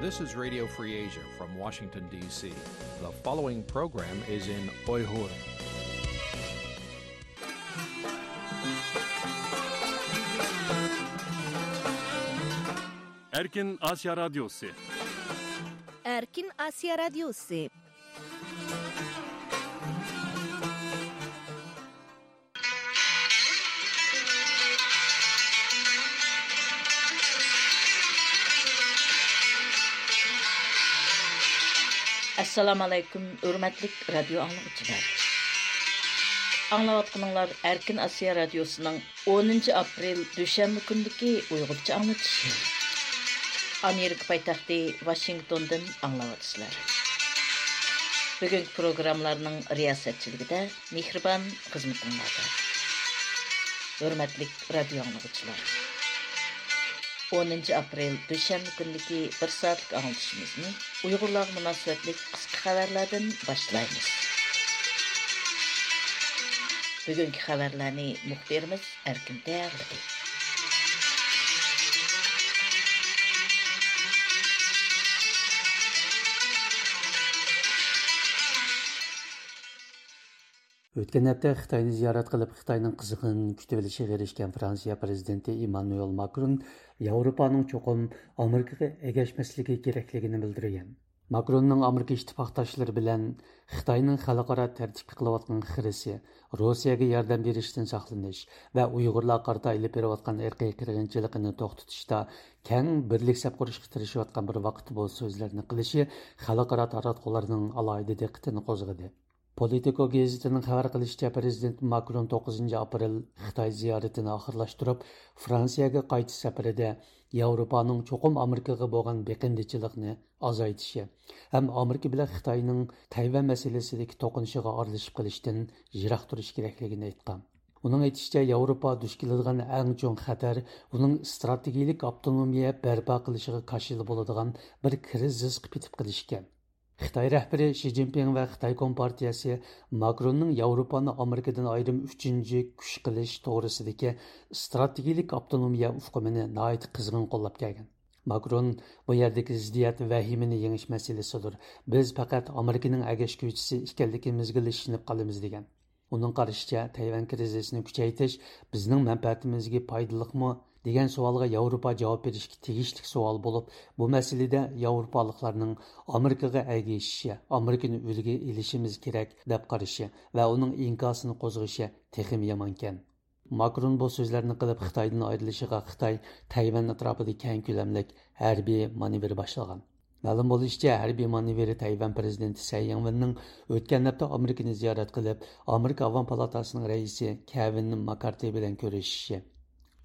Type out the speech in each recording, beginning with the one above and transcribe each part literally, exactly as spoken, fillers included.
This is Radio Free Asia from Washington, D C. The following program is in Uyghur. Erkin Asya Radyosu. Erkin Asya Radyosu. ئەسسالامۇ ئەلەيكۇم، ھۆرمەتلىك رادىيو ئاڭلىغۇچىلار. ئاڭلاۋاتقىنىڭلار ئەركىن ئاسىيا رادىيوسىنىڭ ئونىنچى ئاپرېل دۈشەنبە كۈنىدىكى ئۇيغۇرچە ئاڭلىتىشى. ئامېرىكا پايتەختى ۋاشىنگتوندىن ئاڭلاۋاتىسىلەر. بۈگۈنكى پروگراممىلارنىڭ رىياسەتچىلىكىدە مېھرىبان خىزمىتىڭلاردا. ھۆرمەتلىك رادىيو ئاڭلىغۇچىلار، ئونىنچى ئاپرېل دۈشەنبە كۈنىدىكى بىر سائەتلىك ئاڭلىتىشىمىزنى ئۇيغۇرلارغا مۇناسىۋەتلىك قىسقا خەۋەرلەردىن باشلايمىز. بۈگۈنكى خەۋەرلەرنى مۇخبىرىمىز ئەركىن تەييارلىدى. ئۆتكەن ھەپتە خىتاينى زىيارەت قىلىپ، خىتاينىڭ قىزغىن كۈتۈۋېلىشىغا ئېرىشكەن فرانسىيە پىرېزىدېنتى ئىممانۇئېل ماكرون ياۋروپانىڭ چوقۇم ئامېرىكىغا ئەگەشمەسلىكى كېرەكلىكىنى بىلدۈرگەن. ماكروننىڭ ئامېرىكا ئىتتىپاقداشلىرى بىلەن خىتاينىڭ خەلقئارا تەرتىپكە قىلىۋاتقان خىرىسى، روسىيەگە ياردەم بېرىشتىن ساقلىنىش ۋە ئۇيغۇرلارغا قارىتا ئېلىپ بېرىۋاتقان ئىرقىي قىرغىنچىلىقىنى توختىتىشتا كەڭ بىرلىك سەپ قۇرۇشقا تىرىشىۋاتقان بىر ۋاقىتتا بۇ سۆزلەرنى قىلىشى خەلقئارا تاراتقۇلارنىڭ ئالاھىدە دىققىتىنى قوزغىدى. پولىتىكو گېزىتىنىڭ خەۋەر قىلىشىچە، پىرېزىدېنت ماكرون توققۇزىنچى ئاپرېل خىتاي زىيارىتىنى ئاخىرلاشتۇرۇپ، فرانسىيەگە قايتىش سەپىرىدە ياۋروپانىڭ چوقۇم ئامېرىكىغا بولغان بېقىندىچىلىقىنى ئازايتىشى ھەم ئامېرىكا بىلەن خىتاينىڭ تەيۋەن مەسىلىسىدىكى توقۇنۇشىغا ئارىلىشىپ قېلىشتىن يىراق تۇرۇش كېرەكلىكىنى ئېيتقان. ئۇنىڭ ئېيتىشىچە، ياۋروپا دۇچ كېلىدىغان ئەڭ چوڭ خەتەر ئۇنىڭ ئىستراتېگىيىلىك ئاپتونومىيە بەرپا قىلىشىغا كاشىلا بولىدىغان بىر كىرىزىسقا پېتىپ قېلىشىكەن. خىتاي رەھبىرى شى جىنپىڭ ۋە خىتاي كومپارتىيەسى ماكروننىڭ ياۋروپانى ئامېرىكىدىن ئايرىم ئۈچىنچى كۈچ قىلىش توغرىسىدىكى ئىستراتېگىيىلىك ئاپتونومىيە ئۇقۇمىنى ناھايىتى قىزغىن قوللاپ كەلگەن. ماكرون بۇ يەردىكى زىددىيەت ۋەھىمىنى يېڭىش مەسىلىسىدۇر. بىز پەقەت ئامېرىكىنىڭ ئەگەشكۈچىسى ئىكەنلىكىمىزگىلا ئىشىنىپ قالىمىز، دېگەن. ئۇنىڭ قارىشىچە، تەيۋەن كىرىزىسىنى كۈچەيتىش بىزنىڭ مەنپەئەتىمىزگە پايدىلىقمۇ دېگەن سوئالغا ياۋروپا جاۋاب بېرىشكە تېگىشلىك سوئال بولۇپ، بۇ مەسىلىدە ياۋروپالىقلارنىڭ ئامېرىكىغا ئەگىشىشى، ئامېرىكىنى ئۈلگە ئېلىشىمىز كېرەك دەپ قارىشى ۋە ئۇنىڭ ئىنكاسىنى قوزغىشى تېخىمۇ يامانكەن. ماكرون بۇ سۆزلەرنى قىلىپ، خىتايدىن ئايرىلىشىغا خىتاي تەيۋەن ئەتراپىدا كەڭ كۆلەملىك ھەربىي مانېۋىر باشلىغان. مەلۇم بولۇشىچە، ھەربىي مانېۋىر تەيۋەن پىرېزىدېنتى سەي يىڭۋېننىڭ ئۆتكەن ھەپتە ئامېرىكىنى زىيارەت قىلىپ، ئامېرىكا ئاۋام پالاتاسىنىڭ رەئىسى كېۋىن ماككارتى بىلەن كۆرۈشۈشى،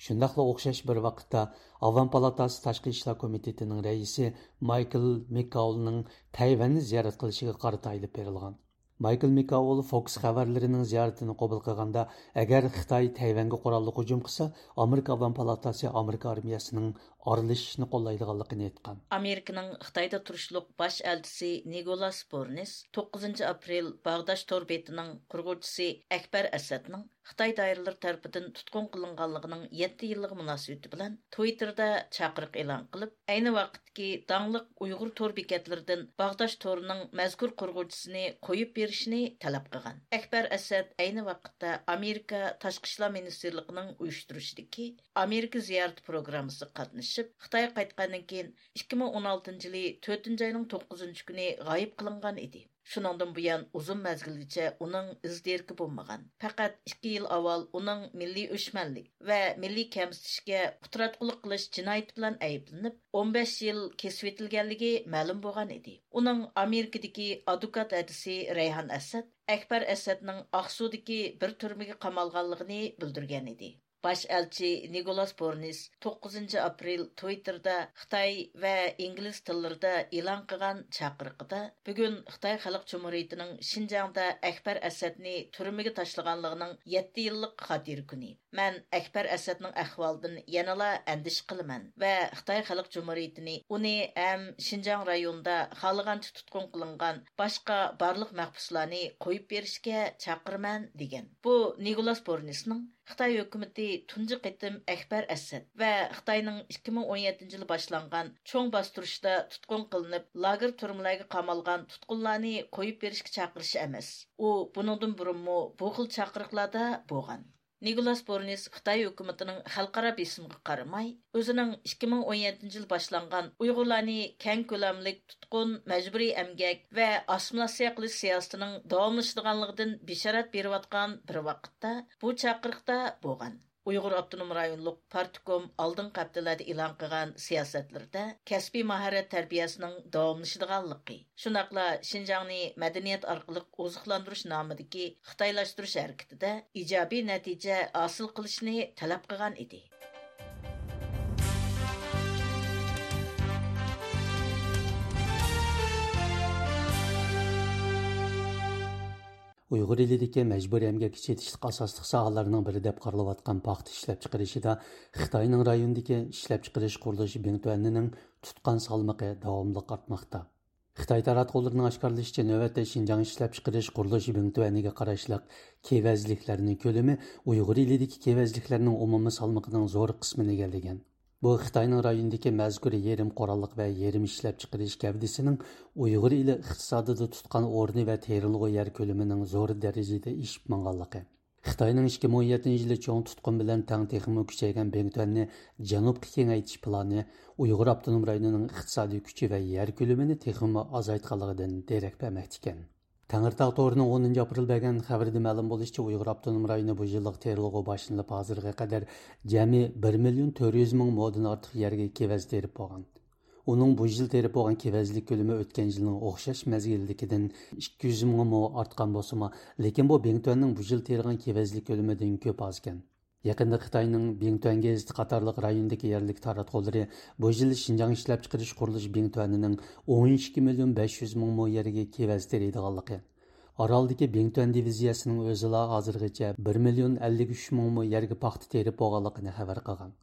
شۇنداقلا ئوخشاش بىر ۋاقىتتا ئاۋام پالاتاسى تاشقى ئىشلار كومىتېتىنىڭ رەئىسى مايكل مىككاولنىڭ تەيۋەننى زىيارەت قىلىشىغا قارىتا ئېلىپ بېرىلغان. مايكل مىكاۋول فوكس خەۋەرلىرىنىڭ زىيارىتىنى قوبۇل قىلغاندا، ئەگەر خىتاي تەيۋەنگە قوراللىق ھۇجۇم قىلسا، ئامېرىكا ئاۋام پالاتاسى ئامېرىكا ئارمىيەسىنىڭ ئارىلىشىشنى قوللايدىغانلىقىنى ئېيتقان. ئامېرىكىنىڭ خىتايدا تۇرۇشلۇق باش ئەلچىسى نىكولاس بورنىس توققۇزىنچى ئاپرېل باغداش تور بېتىنىڭ قۇرغۇچىسى ئەكبەر ئەسەدنىڭ خىتاي دائىرىلىرى تەرىپىدىن تۇتقۇن قىلىنغانلىقىنىڭ يەتتە يىللىقى مۇناسىۋىتى بىلەن تىۋىتتېردا چاقىرىق ئېلان قىلىپ، ئەينى ۋاقىتتىكى داڭلىق ئۇيغۇر تور بېكەتلىرىدىن باغداش تورىنىڭ مەزكۇر قۇرغۇچىسىنى قويۇپ بېرىشنى تەلەپ قىلغان. ئەكبەر ئەسەد ئەينى ۋاقىتتا ئامېرىكا تاشقى ئىشلار مىنىستىرلىقىنىڭ ئۇيۇشتۇرۇشىدىكى ئامېرىكا زىيارىتى پروگراممىسىغا قاتنىشىپ، خىتايغا قايتقاندىن كېيىن، ئىككى مىڭ ئون ئالتىنچى يىلى تۆتىنچى ئاينىڭ توققۇزىنچى كۈنى غايىب قىلىنغان ئىدى. شۇنىڭدىن بۇيان ئۇزۇن مەزگىلگىچە ئۇنىڭ ئىز دېرىكى بولمىغان. پەقەت ئىككى يىل ئاۋۋال ئۇنىڭ مىللىي ئۆچمەنلىك ۋە مىللىي كەمسىتىشكە ئۇتتۇراتقۇلۇق قىلىش جىنايىتى بىلەن ئەيىبلىنىپ، ئون بەش يىل كېسىۋېتىلگەنلىكى مەلۇم بولغان ئىدى. ئۇنىڭ ئامېرىكىدىكى ئادۋوكات ھەدىسى رەيھان ئەسەد ئەكبەر ئەسەدنىڭ ئاقسۇدىكى بىر تۈرمىگە قامالغانلىقىنى بىلدۈرگەن ئىدى. باش ئەلچى نىكولاس بورنىس توققۇزىنچى ئاپرېل تىۋىتتېردا خىتاي ۋە ئىنگلىز تىللىرىدا ئېلان قىلغان چاقىرىقىدا، بۈگۈن خىتاي خەلق جۇمھۇرىيىتىنىڭ شىنجاڭدا ئەكبەر ئەسەدنى تۈرمىگە تاشلىغانلىقىنىڭ يەتتە يىللىق خاتىرە كۈنى. مەن ئەكبەر ئەسەدنىڭ ئەھۋالىدىن يەنىلا ئەندىشە قىلىمەن ۋە خىتاي خەلق جۇمھۇرىيىتىنى، ئۇنى ھەم شىنجاڭ رايونىدا خالىغانچە تۇتقۇن قىلىنغان باشقا بارلىق مەھبۇسلارنى قويۇپ بېرىشكە چاقىرىمەن، دېگەن. بۇ نىكولاس بورنىسنىڭ خىتاي ھۆكۈمىتى تۇنجى قېتىم ئەكبەر ئەسەد ۋە خىتاينىڭ ئىككى مىڭ ئون يەتتىنچى يىلى باشلانغان چوڭ باستۇرۇشتا تۇتقۇن قىلىنىپ، لاگېر تۈرمىلەرگە قامالغان تۇتقۇنلارنى قويۇپ بېرىشكە چاقىرىشى ئەمەس. ئۇ بۇنىڭدىن بۇرۇنمۇ بۇ خىل چاقىرىقلاردا بولغان. نىكولاس بورنىس خىتاي ھۆكۈمىتىنىڭ خەلقئارا بېسىمىغا قارىماي، ئۆزىنىڭ ئىككى مىڭ ئون يەتتىنچى يىلى باشلانغان ئۇيغۇرلارنى كەڭ كۆلەملىك تۇتقۇن، مەجبۇرىي ئەمگەك ۋە ئاسسىمىلياتسىيە قىلىش سىياسىتىنىڭ داۋاملىشىدىغانلىقىدىن بېشارەت بېرىۋاتقان بىر ۋاقىتتا، بۇ چاقىرىقتا بولغان. ئۇيغۇر ئاپتونوم رايونلۇق پارتكوم ئالدىنقى ھەپتىلەردە ئېلان قىلغان سىياسەتلىرىدە كەسپىي ماھارەت تەربىيەسىنىڭ داۋاملىشىدىغانلىقى، شۇنداقلا شىنجاڭنى مەدەنىيەت ئارقىلىق ئوزۇقلاندۇرۇش نامىدىكى خىتايلاشتۇرۇش ھەرىكىتىدە ئىجابىي نەتىجە ھاسىل قىلىشنى تەلەپ قىلغان ئىدى. ئۇيغۇر ئېلىدىكى مەجبۇرىي ئەمگەككە چېتىشلىق ئاساسلىق ساھەلەرنىڭ بىرى دەپ قارىلىۋاتقان پاختا ئىشلەپچىقىرىشىدا خىتاينىڭ رايوندىكى ئىشلەپچىقىرىش قۇرۇلۇشى بىڭتۈەنىنىڭ تۇتقان سالمىقى داۋاملىق ئارتماقتا. خىتاي تاراتقۇلىرىنىڭ ئاشكارىلىشىچە، نۆۋەتتە شىنجاڭ ئىشلەپچىقىرىش قۇرۇلۇشى بىڭتۈەنىگە قاراشلىق كېۋەزلىكلەرنىڭ كۆلىمى ئۇيغۇر ئېلىدىكى كېۋەزلىكلەرنىڭ ئومۇمىي سالمىقىنىڭ زور قىسمىنى ئىگىلىگەن. بۇ خىتاينىڭ رايوندىكى مەزكۇر يېرىم قوراللىق ۋە يېرىم ئىشلەپچىقىرىش گەۋدىسىنىڭ ئۇيغۇر ئېلى ئىقتىسادىدا تۇتقان ئورنى ۋە تېرىلغۇ يەر كۆلىمىنىڭ زور دەرىجىدە ئېشىپ ماڭغانلىقى، خىتاينىڭ ئىككى مىڭ ئون يەتتىنچى يىلى چوڭ تۇتقۇن بىلەن تەڭ تېخىمۇ كۈچەيگەن بىڭتۈەننى جەنۇبقا كېڭەيتىش پىلانى ئۇيغۇر ئاپتونوم رايونىنىڭ ئىقتىسادىي كۈچى ۋە يەر كۆلىمىنى تېخىمۇ ئازايتقانلىقىدىن دېرەك بەرمەكتىكەن. تەڭرىتاغ تورىنىڭ ئونىنچى ئاپرېل بەرگەن خەۋىرىدە مەلۇم بولۇشىچە، ئۇيغۇر ئاپتونوم رايونى بۇ يىللىق تېرىلغۇ باشلىنىپ ھازىرغا قەدەر جەمئىي بىر مىليون تۆت يۈز مىڭ مودىن ئارتۇق يەرگە كېۋەز تېرىپ بولغان. ئۇنىڭ بۇ يىل تېرىپ بولغان كېۋەزلىك كۆلىمى ئۆتكەن يىلنىڭ ئوخشاش مەزگىلدىكىدىن ئىككى يۈز مىڭ مو ئارتقان بولسىمۇ، لېكىن بۇ بىڭتۈەننىڭ بۇ يىل تېرىغان كېۋەزلىك كۆلىمىدىن كۆپ ئازكەن. يېقىندا خىتاينىڭ بىڭتۈەن گېزىتى قاتارلىق رايوندىكى يەرلىك تاراتقۇلىرى بۇ يىل شىنجاڭ ئىشلەپچىقىرىش قۇرۇلۇشى بىڭتۈەنىنىڭ ئون ئىككى مىليون بەش يۈز مىڭ مو يەرگە كېۋەز تېرىيدىغانلىقى، ئارالدىكى بىڭتۈەن دىۋىزىيەسىنىڭ ئۆزىلا ھازىرغىچە بىر مىليون ئەللىك ئۈچ مىڭ مو يەرگە پاختا تېرىپ بولغانلىقىنى خەۋەر قىلغان.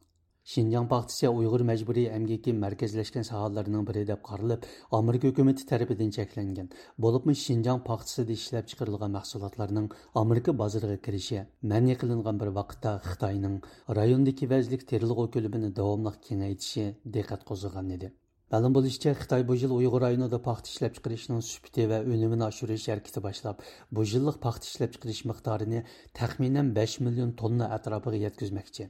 شىنجاڭ پاختىسى ئۇيغۇر مەجبۇرىي ئەمگىكى مەركەزلەشكەن ساھەلەرنىڭ بىرى دەپ قارىلىپ، ئامېرىكا ھۆكۈمىتى تەرىپىدىن چەكلەنگەن، بولۇپمۇ شىنجاڭ پاختىسىدا ئىشلەپچىقىرىلغان مەھسۇلاتلارنىڭ ئامېرىكا بازىرىغا كىرىشى مەنئى قىلىنغان بىر ۋاقىتتا، خىتاينىڭ رايوندا كېۋەزلىك تېرىلغۇ كۆلىمىنى داۋاملىق كېڭەيتىشى دىققەت قوزغىغان ئىدى. مەلۇم بولۇشىچە، خىتاي بۇ يىل ئۇيغۇر رايونىدا پاختا ئىشلەپچىقىرىشنىڭ سۈپىتى ۋە ئۈنۈمىنى ئاشۇرۇش ھەرىكىتى باشلاپ، بۇ يىللىق پاختا ئىشلەپچىقىرىش مىقدارىنى تەخمىنەن بەش مىليون توننا ئەتراپىغا يەتكۈزمەكچى.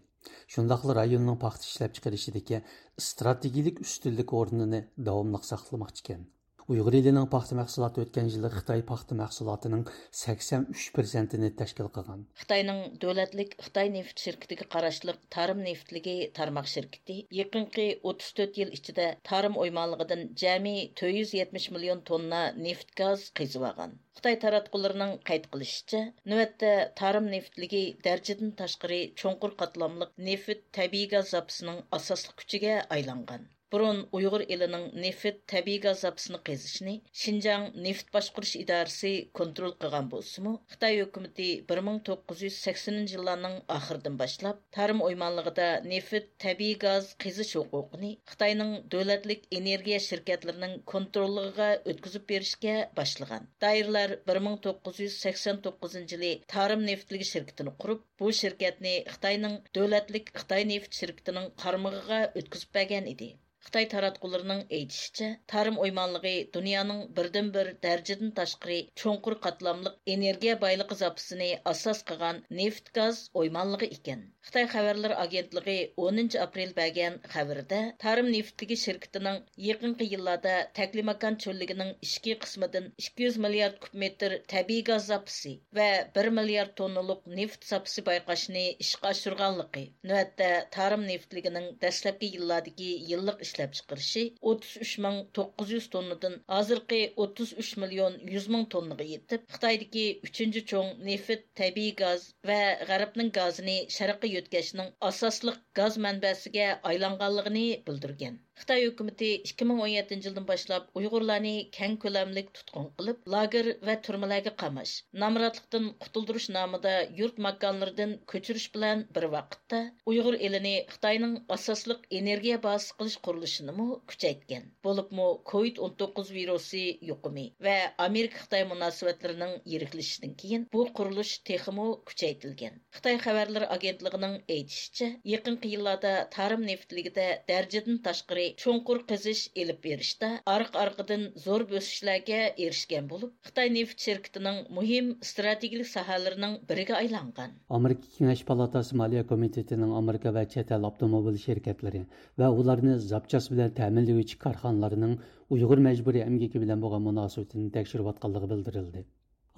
شۇنداقلا رايوننىڭ پاختا ئىشلەپچىقىرىشىدىكى ئىستراتېگىيىلىك ئۈستۈنلۈك ئورنىنى داۋاملىق ساقلىماقچىكەن. ئۇيغۇر ئېلىنىڭ پاختا مەھسۇلاتى ئۆتكەن يىلى خىتاي پاختا مەھسۇلاتىنىڭ سەكسەن ئۈچ پىرسەنتىنى تەشكىل قىلغان. خىتاينىڭ دۆلەتلىك خىتاي نېفىت شىركىتىگە قاراشلىق تارىم نېفىتلىكى تارماق شىركىتى يېقىنقى ئوتتۇز تۆت يىل ئىچىدە تارىم ئويمانلىقىدىن جەمئىي تۆت يۈز يەتمىش مىليون توننا نېفىت گاز قېزىۋالغان. خىتاي تاراتقۇلىرىنىڭ قەيت قىلىشىچە، نۆۋەتتە تارىم نېفىتلىكى دەرىجىدىن تاشقىرى چوڭقۇر قاتلاملىق نېفىت، تەبىئىي گاز زاپىسىنىڭ ئاساسلىق كۈچىگە ئايلانغان. بۇرۇن ئۇيغۇر ئېلىنىڭ نېفىت، تەبىئىي گاز زاپىسىنى قېزىشنى شىنجاڭ نېفىت باشقۇرۇش ئىدارىسى كونترول قىلغان بولسىمۇ، خىتاي ھۆكۈمىتى بىر مىڭ توققۇز يۈز سەكسىنىنچى يىللارنىڭ ئاخىرىدىن باشلاپ، تارىم ئويمانلىقىدا نېفىت، تەبىئىي گاز قېزىش ھوقۇقىنى خىتاينىڭ دۆلەتلىك ئېنېرگىيە شىركەتلىرىنىڭ كونتروللۇقىغا ئۆتكۈزۈپ بېرىشكە باشلىغان. دائىرىلەر بىر مىڭ توققۇز يۈز سەكسەن توققۇزىنچى يىلى تارىم نېفىتلىكى شىركىتىنى قۇرۇپ، بۇ شىركەتنى خىتاينىڭ دۆلەتلىك خىتاي نېفىت شىركىتىنىڭ قارمىقىغا ئۆتكۈزۈپ بەرگەن ئىدى. خىتاي تاراتقۇلىرىنىڭ ئېيتىشىچە، تارىم ئويمانلىقى دۇنيانىڭ بىردىنبىر دەرىجىدىن تاشقىرى چوڭقۇر قاتلاملىق ئېنېرگىيە بايلىقى زاپىسىنى ئاساس قىلغان نېفىت گاز ئويمانلىقى ئىكەن. خىتاي خەۋەرلىرى ئاگېنتلىقى ئونىنچى ئاپرېل بەرگەن خەۋىرىدە، تارىم نېفىتلىكى شىركىتىنىڭ يېقىنقى يىللاردا تەكلىماكان چۆللۈكىنىڭ ئىچكى قىسمىدىن ئىككى يۈز مىليارد كۇب مېتىر تەبىئىي گاز زاپىسى ۋە بىر مىليارد توننىلىق نېفىت زاپىسى بايقاشنى ئىشقا ئاشۇرغانلىقى، نۆۋەتتە تارىم نېفىتلىكىنىڭ دەسلەپكى يىللاردىكى يىللىق ئىشلەپچىقىرىشى ئوتتۇز ئۈچ مىڭ توققۇز يۈز توننىدىن ھازىرقى ئوتتۇز ئۈچ مىليون يۈز مىڭ توننىغا يېتىپ، خىتايدىكى ئۈچىنچى چوڭ نېفىت، تەبىئىي گاز ۋە غەربنىڭ گازىنى شەرققە يۆتكەشنىڭ ئاساسلىق گاز مەنبەسىگە ئايلانغانلىقىنى بىلدۈرگەن. خىتاي ھۆكۈمىتى ئىككى مىڭ ئون يەتتىنچى يىلدىن باشلاپ ئۇيغۇرلارنى كەڭ كۆلەملىك تۇتقۇن قىلىپ، لاگېر ۋە تۈرمىلەرگە قاماش، نامراتلىقتىن قۇتۇلدۇرۇش نامىدا يۇرت ماكانلىرىدىن كۆچۈرۈش بىلەن بىر ۋاقىتتا، ئۇيغۇر ئېلىنى خىتاينىڭ ئاساسلىق ئېنېرگىيە بازىسى قىلىش قۇرۇلۇشى قىلىشىنىمۇ كۈچەيتكەن. بولۇپمۇ كوۋىد ئون توققۇز ۋىرۇسى يۇقۇمى ۋە ئامېرىكا-خىتاي مۇناسىۋەتلىرىنىڭ يىرىكلىشىشىدىن كېيىن بۇ قۇرۇلۇش تېخىمۇ كۈچەيتىلگەن. خىتاي خەۋەرلىرى ئاگېنتلىقىنىڭ ئېيتىشىچە، يېقىنقى يىللاردا تارىم نېفىتلىكىدە دەرىجىدىن تاشقىرى چوڭقۇر قېزىش ئېلىپ بېرىشتا ئارقا-ئارقىدىن زور بۆسۈشلەرگە ئېرىشكەن بولۇپ، خىتاي نېفىت شىركىتىنىڭ مۇھىم ئىستراتېگىيەلىك ساھەلىرىنىڭ بىرىگە ئايلانغان. ئامېرىكا كېڭەش پالاتاسى مالىيە كومىتېتىنىڭ ئامېرىكا ۋە چەت ئەل ئاپتوموبىل شىركەتلىرى ۋە ئۇلارنى زاپچاس بىلەن تەمىنلىگۈچى كارخانىلارنىڭ ئۇيغۇر مەجبۇرىي ئەمگىكى بىلەن بولغان مۇناسىۋىتىنى تەكشۈرۈۋاتقانلىقى بىلدۈرۈلدى.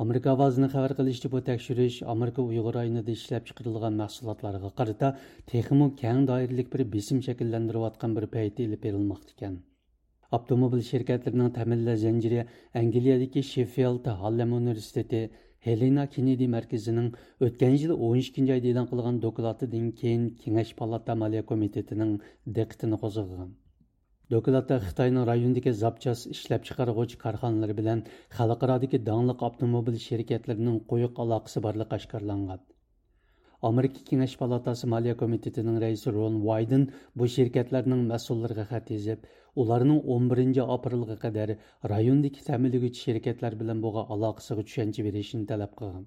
ئامېرىكا ئاۋازىنىڭ خەۋەر قىلىشىچە، بۇ تەكشۈرۈش ئامېرىكا ئۇيغۇر رايونىدا ئىشلەپچىقىرىلغان مەھسۇلاتلارغا قارىتا تېخىمۇ كەڭ دائىرىلىك بىر بېسىم شەكىللەندۈرۈۋاتقان بىر پەيتتە ئېلىپ بېرىلماقتا ئىكەن. ئاپتوموبىل شىركەتلىرىنىڭ تەمىنلەش زەنجىرى ئەنگلىيەدىكى شېففىلد ھارلېم ئۇنىۋېرسىتېتى ھېلېنا كېننېدى مەركىزىنىڭ ئۆتكەن يىل ئون ئىككىنچى ئايدا ئېلان قىلغان دوكلاتىدىن كېيىن كېڭەش پالاتا مالىيە كومىتېتىنىڭ دىققىتىنى قوزغىغان. دوكلاتتا خىتاينىڭ رايوندىكى زاپچاس ئىشلەپچىقارغۇچى كارخانىلىرى بىلەن خەلقئارادىكى داڭلىق ئاپتوموبىل شىركەتلىرىنىڭ قويۇق ئالاقىسى بارلىقى ئاشكارىلانغان. ئامېرىكا كېڭەش پالاتاسى مالىيە كومىتېتىنىڭ رەئىسى رون ۋايدېن بۇ شىركەتلەرنىڭ مەسئۇللىرىغا خەت يېزىپ، ئۇلارنىڭ ئون بىرىنچى ئاپرېلغا قەدەر رايوندىكى تەمىنلىگۈچى شىركەتلەر بىلەن بولغان ئالاقىسىغا چۈشەنچە بېرىشىنى تەلەپ قىلغان.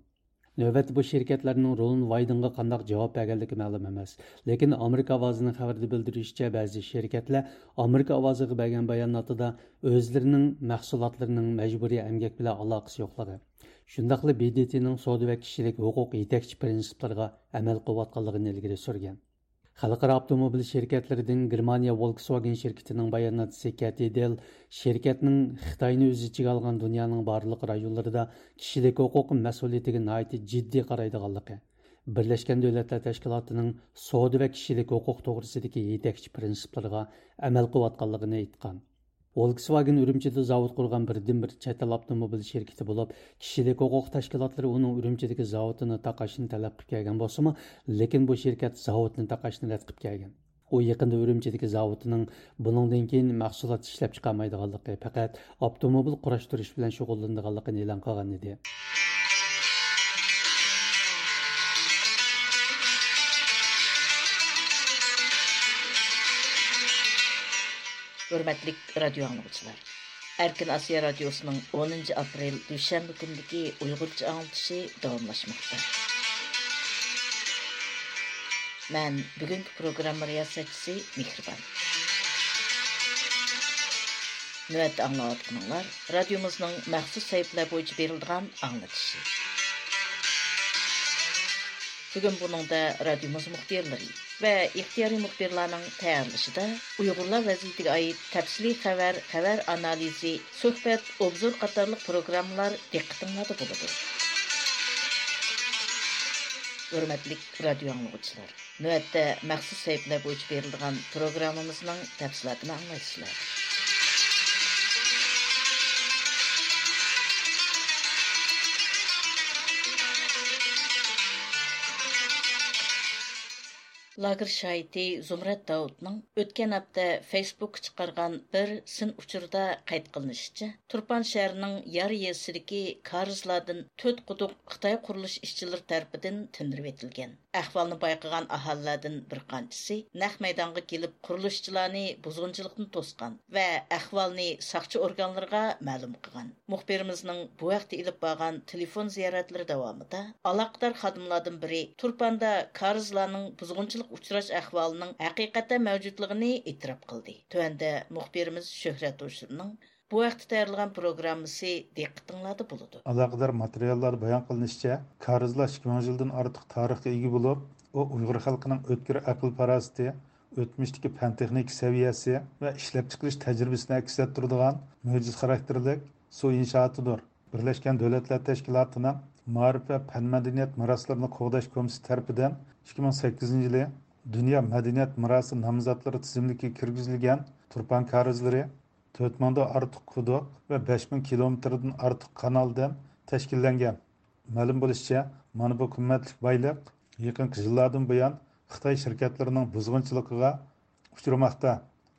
نۆۋەتتە بۇ شىركەتلەرنىڭ رون ۋايدېنغا قانداق جاۋاب بەرگەنلىكى مەلۇم ئەمەس. لېكىن ئامېرىكا ئاۋازىنىڭ خەۋىرىدە بىلدۈرۈشىچە، بەزى شىركەتلەر ئامېرىكا ئاۋازىغا بەرگەن باياناتىدا ئۆزلىرىنىڭ مەھسۇلاتلىرىنىڭ مەجبۇرىي ئەمگەك بىلەن ئالاقىسى يوقلۇقى، شۇنداقلا ب د ت نىڭ سودا ۋە كىشىلىك ھوقۇق يېتەكچى پىرىنسىپلىرىغا ئەمەل قىلىۋاتقانلىقىنى ئىلگىرى سۈرگەن. خەلقئارا ئاپتوموبىل شىركەتلىرىدىن گېرمانىيە ۋولكسۋاگېن شىركىتىنىڭ باياناتچىسى كەتى دېل شىركەتنىڭ خىتاينى ئۆز ئىچىگە ئالغان دۇنيانىڭ بارلىق رايونلىرىدا كىشىلىك ھوقۇق مەسئۇلىيىتىگە ناھايىتى جىددىي قارايدىغانلىقى، بىرلەشكەن دۆلەتلەر تەشكىلاتىنىڭ سودا ۋە كىشىلىك ھوقۇق توغرىسىدىكى يېتەكچى پىرىنسىپلىرىغا ئەمەل قىلىۋاتقانلىقىنى ئېيتقان. ۋولكسۋاگېن ئۈرۈمچىدە زاۋۇت قۇرغان بىردىنبىر چەت ئەل ئاپتوموبىل شىركىتى بولۇپ، كىشىلىك ھوقۇق تەشكىلاتلىرى ئۇنىڭ ئۈرۈمچىدىكى زاۋۇتىنى تاقاشنى تەلەپ قىلىپ كەلگەن بولسىمۇ، لېكىن بۇ شىركەت زاۋۇتنى تاقاشنى رەت قىلىپ كەلگەن. ئۇ يېقىندا ئۈرۈمچىدىكى زاۋۇتىنىڭ بۇنىڭدىن كېيىن مەھسۇلات ئىشلەپچىقارمايدىغانلىقى، پەقەت ئاپتوموبىل قۇراشتۇرۇش بىلەن شۇغۇللىنىدىغانلىقىنى ئېلان قىلغان ئىدى. ھۆرمەتلىك رادىيو ئاڭلىغۇچىلار! ئەركىن ئاسىيا رادىيوسىنىڭ ئونىنچى ئاپرېل دۈشەنبە كۈنىدىكى ئۇيغۇرچە ئاڭلىتىشى داۋاملاشماقتا. مەن بۈگۈنكى پروگرامما رىياسەتچىسى مېھرىبان. نۆۋەتتە ئاڭلاۋاتقىنىڭلار رادىيومىزنىڭ مەخسۇس سەھىپىلەر بويىچە بېرىلىدىغان ئاڭلىتىشى. بۈگۈن بۇنىڭدا رادىيومىز مۇخبىرلىرى ۋە ئىختىيارىي مۇخبىرلارنىڭ تەييارلىشىدا ئۇيغۇرلار ۋەزىيىتىگە ئائىت تەپسىلىي خەۋەر، خەۋەر ئانالىزى، سۆھبەت، ئوبزور قاتارلىق پروگراممىلار دىققىتىڭلاردا بولىدۇ. ھۆرمەتلىك رادىيو ئاڭلىغۇچىلار! نۆۋەتتە مەخسۇس سەھىپىلەر بويىچە بېرىلىدىغان پروگراممىمىزنىڭ تەپسىلاتىنى ئاڭلايسىلەر. لاگېر شاھىتى زۇمرەت داۋۇتنىڭ ئۆتكەن ھەپتە فېيسبۇكقا چىقارغان بىر سىن ئۇچۇرىدا قەيت قىلىنىشىچە، تۇرپان شەھىرىنىڭ يار يېزىسىدىكى كارىزلاردىن تۆت قۇدۇق خىتاي قۇرۇلۇش ئىشچىلىرى تەرىپىدىن تىندۇرۇۋېتىلگەن. ئەھۋالنى بايقىغان ئاھالىلەردىن بىر قانچىسى نەق مەيدانغا كېلىپ، قۇرۇلۇشچىلارنى بۇزغۇنچىلىقتىن توسقان ۋە ئەھۋالنى ساقچى ئورگانلىرىغا مەلۇم قىلغان. مۇخبىرىمىزنىڭ بۇ ھەقتە ئېلىپ بارغان تېلېفون زىيارەتلىرى داۋامىدا ئالاقىدار خادىملاردىن بىرى تۇرپاندا كارىزلارنىڭ بۇزغۇنچىلىققا ئۇچراش ئەھۋالىنىڭ ھەقىقەتەن مەۋجۇتلۇقىنى ئېتىراپ قىلدى. تۆۋەندە مۇخبىرىمىز شۆھرەت ھوشۇرنىڭ بۇ ھەقتە تەييارلىغان پروگراممىسى دىققىتىڭلاردا بولىدۇ. ئالاقىدار ماتېرىياللاردا بايان قىلىنىشىچە، كارىزلار ئىككى مىڭ يىلدىن ئارتۇق تارىخقا ئىگە بولۇپ، ئۇ ئۇيغۇر خەلقىنىڭ ئۆتكۈر ئەقىل-پاراسىتى، ئۆتمۈشتىكى پەن-تېخنىكا سەۋىيەسى ۋە ئىشلەپچىقىرىش تەجرىبىسىنى ئەكس ئەتتۈرىدىغان مۆجىزە خاراكتېرلىك سۇ ئىنشائاتىدۇر. بىرلەشكەن دۆلەتلەر تەشكىلاتىنىڭ مائارىپ ۋە پەن-مەدەنىيەت مىراسلىرىنى قوغداش كومىتېتى تەرىپىدىن ئىككى مىڭ سەككىزىنچى يىلى دۇنيا مەدەنىيەت مىراسى نامزاتلىرى تىزىملىكىگە كىرگۈزۈلگەن تۇرپان كارىزلىرى تۆت مىڭدىن ئارتۇق قۇدۇق ۋە بەش مىڭ كىلومېتىردىن ئارتۇق كانالدىن تەشكىللەنگەن. مەلۇم بولۇشىچە، مانا بۇ قىممەتلىك بايلىق يېقىنقى يىللاردىن بۇيان خىتاي شىركەتلىرىنىڭ بۇزغۇنچىلىقىغا ئۇچرىماقتا.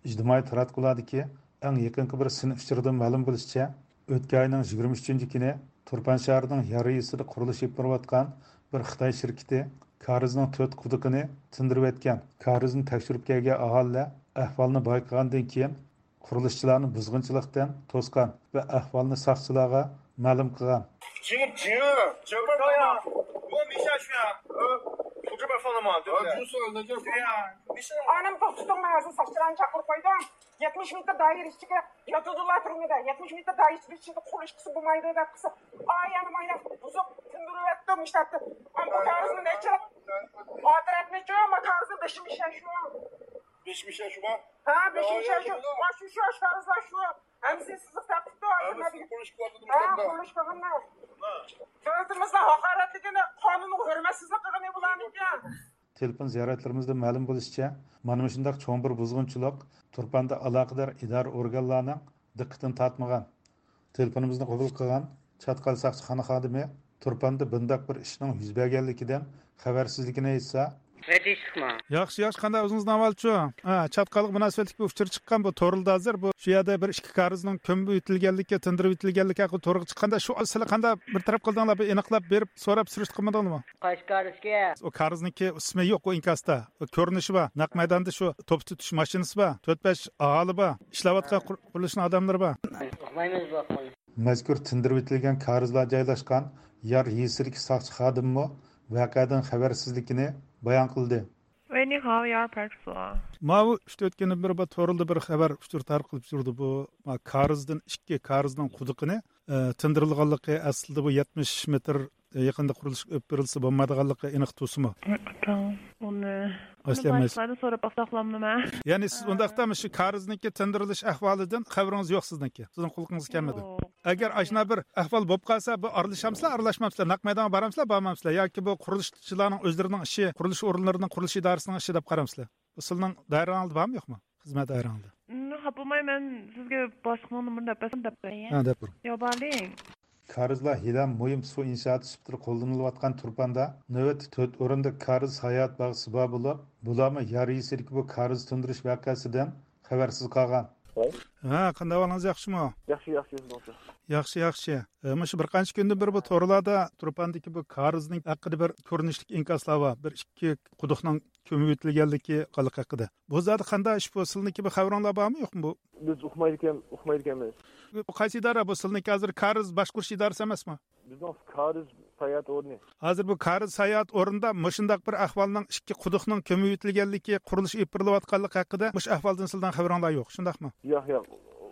ئىجتىمائىي تاراتقۇلاردىكى ئەڭ يېقىنقى بىر سىن ئۇچۇرىدىن مەلۇم بولۇشىچە، ئۆتكەن ئاينىڭ يىگىرمە ئۈچىنچى كۈنى تۇرپان شەھىرىنىڭ يار يېزىسىدا قۇرۇلۇش ئېلىپ بېرىۋاتقان بىر خىتاي شىركىتى كارىزنىڭ تۆت قۇدۇقىنى تىندۇرۇۋەتكەن. كارىزنى تەكشۈرۈپ كەلگەن ئاھالىلەر ئەھۋالنى بايقىغاندىن كېيىن، قۇرۇلۇشچىلارنى بۇزغۇنچىلىقتىن توسقان ۋە ئەھۋالنى ساقچىلارغا مەلۇم قىلغان. 这个这这边儿的嘛，我没下去啊，呃，从这边儿放的嘛，对不对？啊，就是那个。对呀，没事。ئانام توختىتىڭ، مەن ھازىر ساقچىلارنى چاقىرىپ قويدۇم. يەتمىش مېتىر دائىرە ئىچىگە ياتىدۇلا تۈرمىدە. يەتمىش مېتىر دائىرە ئىچىدە قۇرۇلۇش قىلسا بولمايدۇ دەپ قىلسا، ئاي يەنە مايناق بۇزۇپ تىندۇرۇۋەتتىم ئىشلەتتىم. ئاما كارىزنى نەچچە ئاتىرەتنىچۇ، ئاما كارىزنى بېشىم ئىشەشۇ. بېشىم ئىشەشۇ. ھە، بېشىم ئىشەشۇ. شۇ شۇ ئاشكارىزلار شۇ. ھەممىسى سىزىق تارتىپتۇ. ھە، قۇرۇلۇش قىلىۋاتىدۇ. ھە، قۇرۇلۇش قىلغانلار. دۆلىتىمىزنىڭ ھاقارەتلىكىنى، قانۇنغا ھۆرمەتسىزلىك قىلغىنى بۇلارنىڭكى. تېلېفون زىيارەتلىرىمىزدىن مەلۇم بولۇشىچە، مانا مۇشۇنداق چوڭ بىر بۇزغۇنچىلىق تۇرپاندا ئالاقىدار ئىدارە ئورگانلارنىڭ دىققىتىنى تارتمىغان. تېلېفونىمىزنى قوبۇل قىلغان چاتقال ساقچىخانا خادىمى تۇرپاندا بۇنداق بىر ئىشنىڭ يۈز بەرگەنلىكىدىن خەۋەرسىزلىكىنى ئېيتسا، ياخشى، ياخشى، قانداق ئۆزىڭىزنىڭ ئەھۋالىچۇ؟ ھە، چاتقالغا مۇناسىۋەتلىك بىر ئۇچۇر چىققان بۇ تورلىدا ھازىر. بۇ شۇ يەردە بىر ئىككى كارىزنىڭ كۆمۈپ ئۆتۈلگەنلىكى، تىندۇرۇپ ئۆتۈلگەنلىكى ھەققىدە تورغا چىققاندا، شۇ سىلەر قانداق بىر تەرەپ قىلدىڭلار، بىر ئېنىقلاپ بېرىپ سوراپ سۈرۈشتە قىلمىدىڭلارمۇ؟ قايسى كارىزكى؟ ئۇ كارىزنىڭكى ئىسمى يوق، ئۇ ئىنكاستا. ئۇ كۆرۈنۈشى بار. نەق مەيداندا شۇ توپا تۇتۇش ماشىنىسى بار. تۆت بەش ئاھالى بار. ئىشلەۋاتقان قۇر-، قۇرۇلۇشنىڭ ئادەملىرى بار. ئۇقمايمىز بۇ ھەقنى. مەزكۇر تىندۇرۇۋېتىلگەن كارىزلار جايلاشقان يار يېزىسىدىكى ساقچى خادىممۇ ۋەقەدىن خەۋەرسىزلىكىنى بايان قىلدى. 喂，你好，幺二派出所。 ماۋۇ ئۈچ تۆت كۈندىن بېرى بۇ توردا بىر خەۋەر ئۇچۇر تارقىلىپ يۈرىدۇ. بۇ، ما، كارىزدىن ئىككى كارىزنىڭ قۇدۇقىنى، ئە، تىندۇرۇلغانلىقى، ئەسلىدە بۇ يەتمىش مېتىر يېقىندا قۇرۇلۇش ئېلىپ بېرىلسا بولمايدىغانلىقى ئېنىق تۇرسىمۇ؟ ئاتاڭ، ئۇنى ئەسلى ئەمەس. باشقىلارنى سوراپ باقساقلامدىمەن؟ يەنى سىز ئۇنداقتا مۇشۇ كارىزنىڭكى تىندۇرۇلۇش ئەھۋالىدىن خەۋىرىڭىز يوق سىزنىڭكى؟ سىزنىڭ قۇلىقىڭىزغا كەلمىدى؟ يوق. ئەگەر ئاشۇنداق بىر ئەھۋال بولۇپ قالسا، بۇ ئارىلىشامسىلەر، ئارىلاشمامسىلەر؟ نەق مەيدانغا بارامسىلەر، بارمامسىلەر؟ ياكى بۇ قۇرۇلۇشچىلارنىڭ ئۆزلىرىنىڭ ئىشى، قۇرۇلۇش ئورۇنلىرىنىڭ، قۇرۇلۇش ئىدارىسىنىڭ ئىشى دەپ قارامسىلەر؟ بۇ سىلىنىڭ دائىرىڭىزدە بارمۇ، يوقمۇ؟ خىزمەت دائىرىڭىزدە؟ خاپا بولماي، مەن سىزگە باشلىقنىڭ نومۇرىنى دەپ بەرسەم دەپ بەرسەم. ھە، دەپ بېرىڭ. ياۋ بارلىڭ. كارىزلار ھېلىھەم مۇھىم سۇ ئىنشائاتى سۈپىتىدە قوللىنىلىۋاتقان تۇرپاندا نۆۋەتتە تۆت ئورۇندا كارىز ساياھەت باغچىسى بار بولۇپ، بۇلارمۇ يار يېزىسىدىكى بۇ كارىز تىندۇرۇش ۋەقەسىدىن خەۋەرسىز قالغان. ۋاي. ھە، قانداق ئەھۋالىڭىز، ياخشىمۇ؟ ياخشى، ياخشى، ياخشى. ياخشى، ياخشى. ئە، مۇشۇ بىر قانچە كۈندىن بېرى بۇ تورلاردا تۇرپاندىكى بۇ كارىزنىڭ ھەققىدە بىر كۆرۈنۈشلۈك ئىنكاسلار بار. بىر ئىككى قۇدۇقنىڭ كۆمۈۋېتىلگەنلىكى قانلىق ھەققىدە. بۇ زادى قانداق ئىش بۇ؟ سىلنىڭكى بىر خەۋىرىڭلار بارمۇ، يوقمۇ بۇ؟ بىز ئۇقمايدىكەن، ئۇقمايدىكەنمىز. بۇ قايسى ئىدارە بۇ؟ سىلنىڭكى ھازىر كارىز باشقۇرۇش ئىدارىسى ئەمەسمۇ؟ بىزنىڭ كارىز ساياھەت ئورنى. ھازىر بۇ كارىز ساياھەت ئورنىدا مۇشۇنداق بىر ئەھۋالنىڭ، ئىككى قۇدۇقنىڭ كۆمۈۋېتىلگەنلىكى، قۇرۇلۇش ئېلىپ بېرىلىۋاتقانلىقى ھەققىدە مۇشۇ ئەھۋالدىن سىلەرنىڭ خەۋىرىڭلار يوق، شۇنداقمۇ؟ ياق، ياق،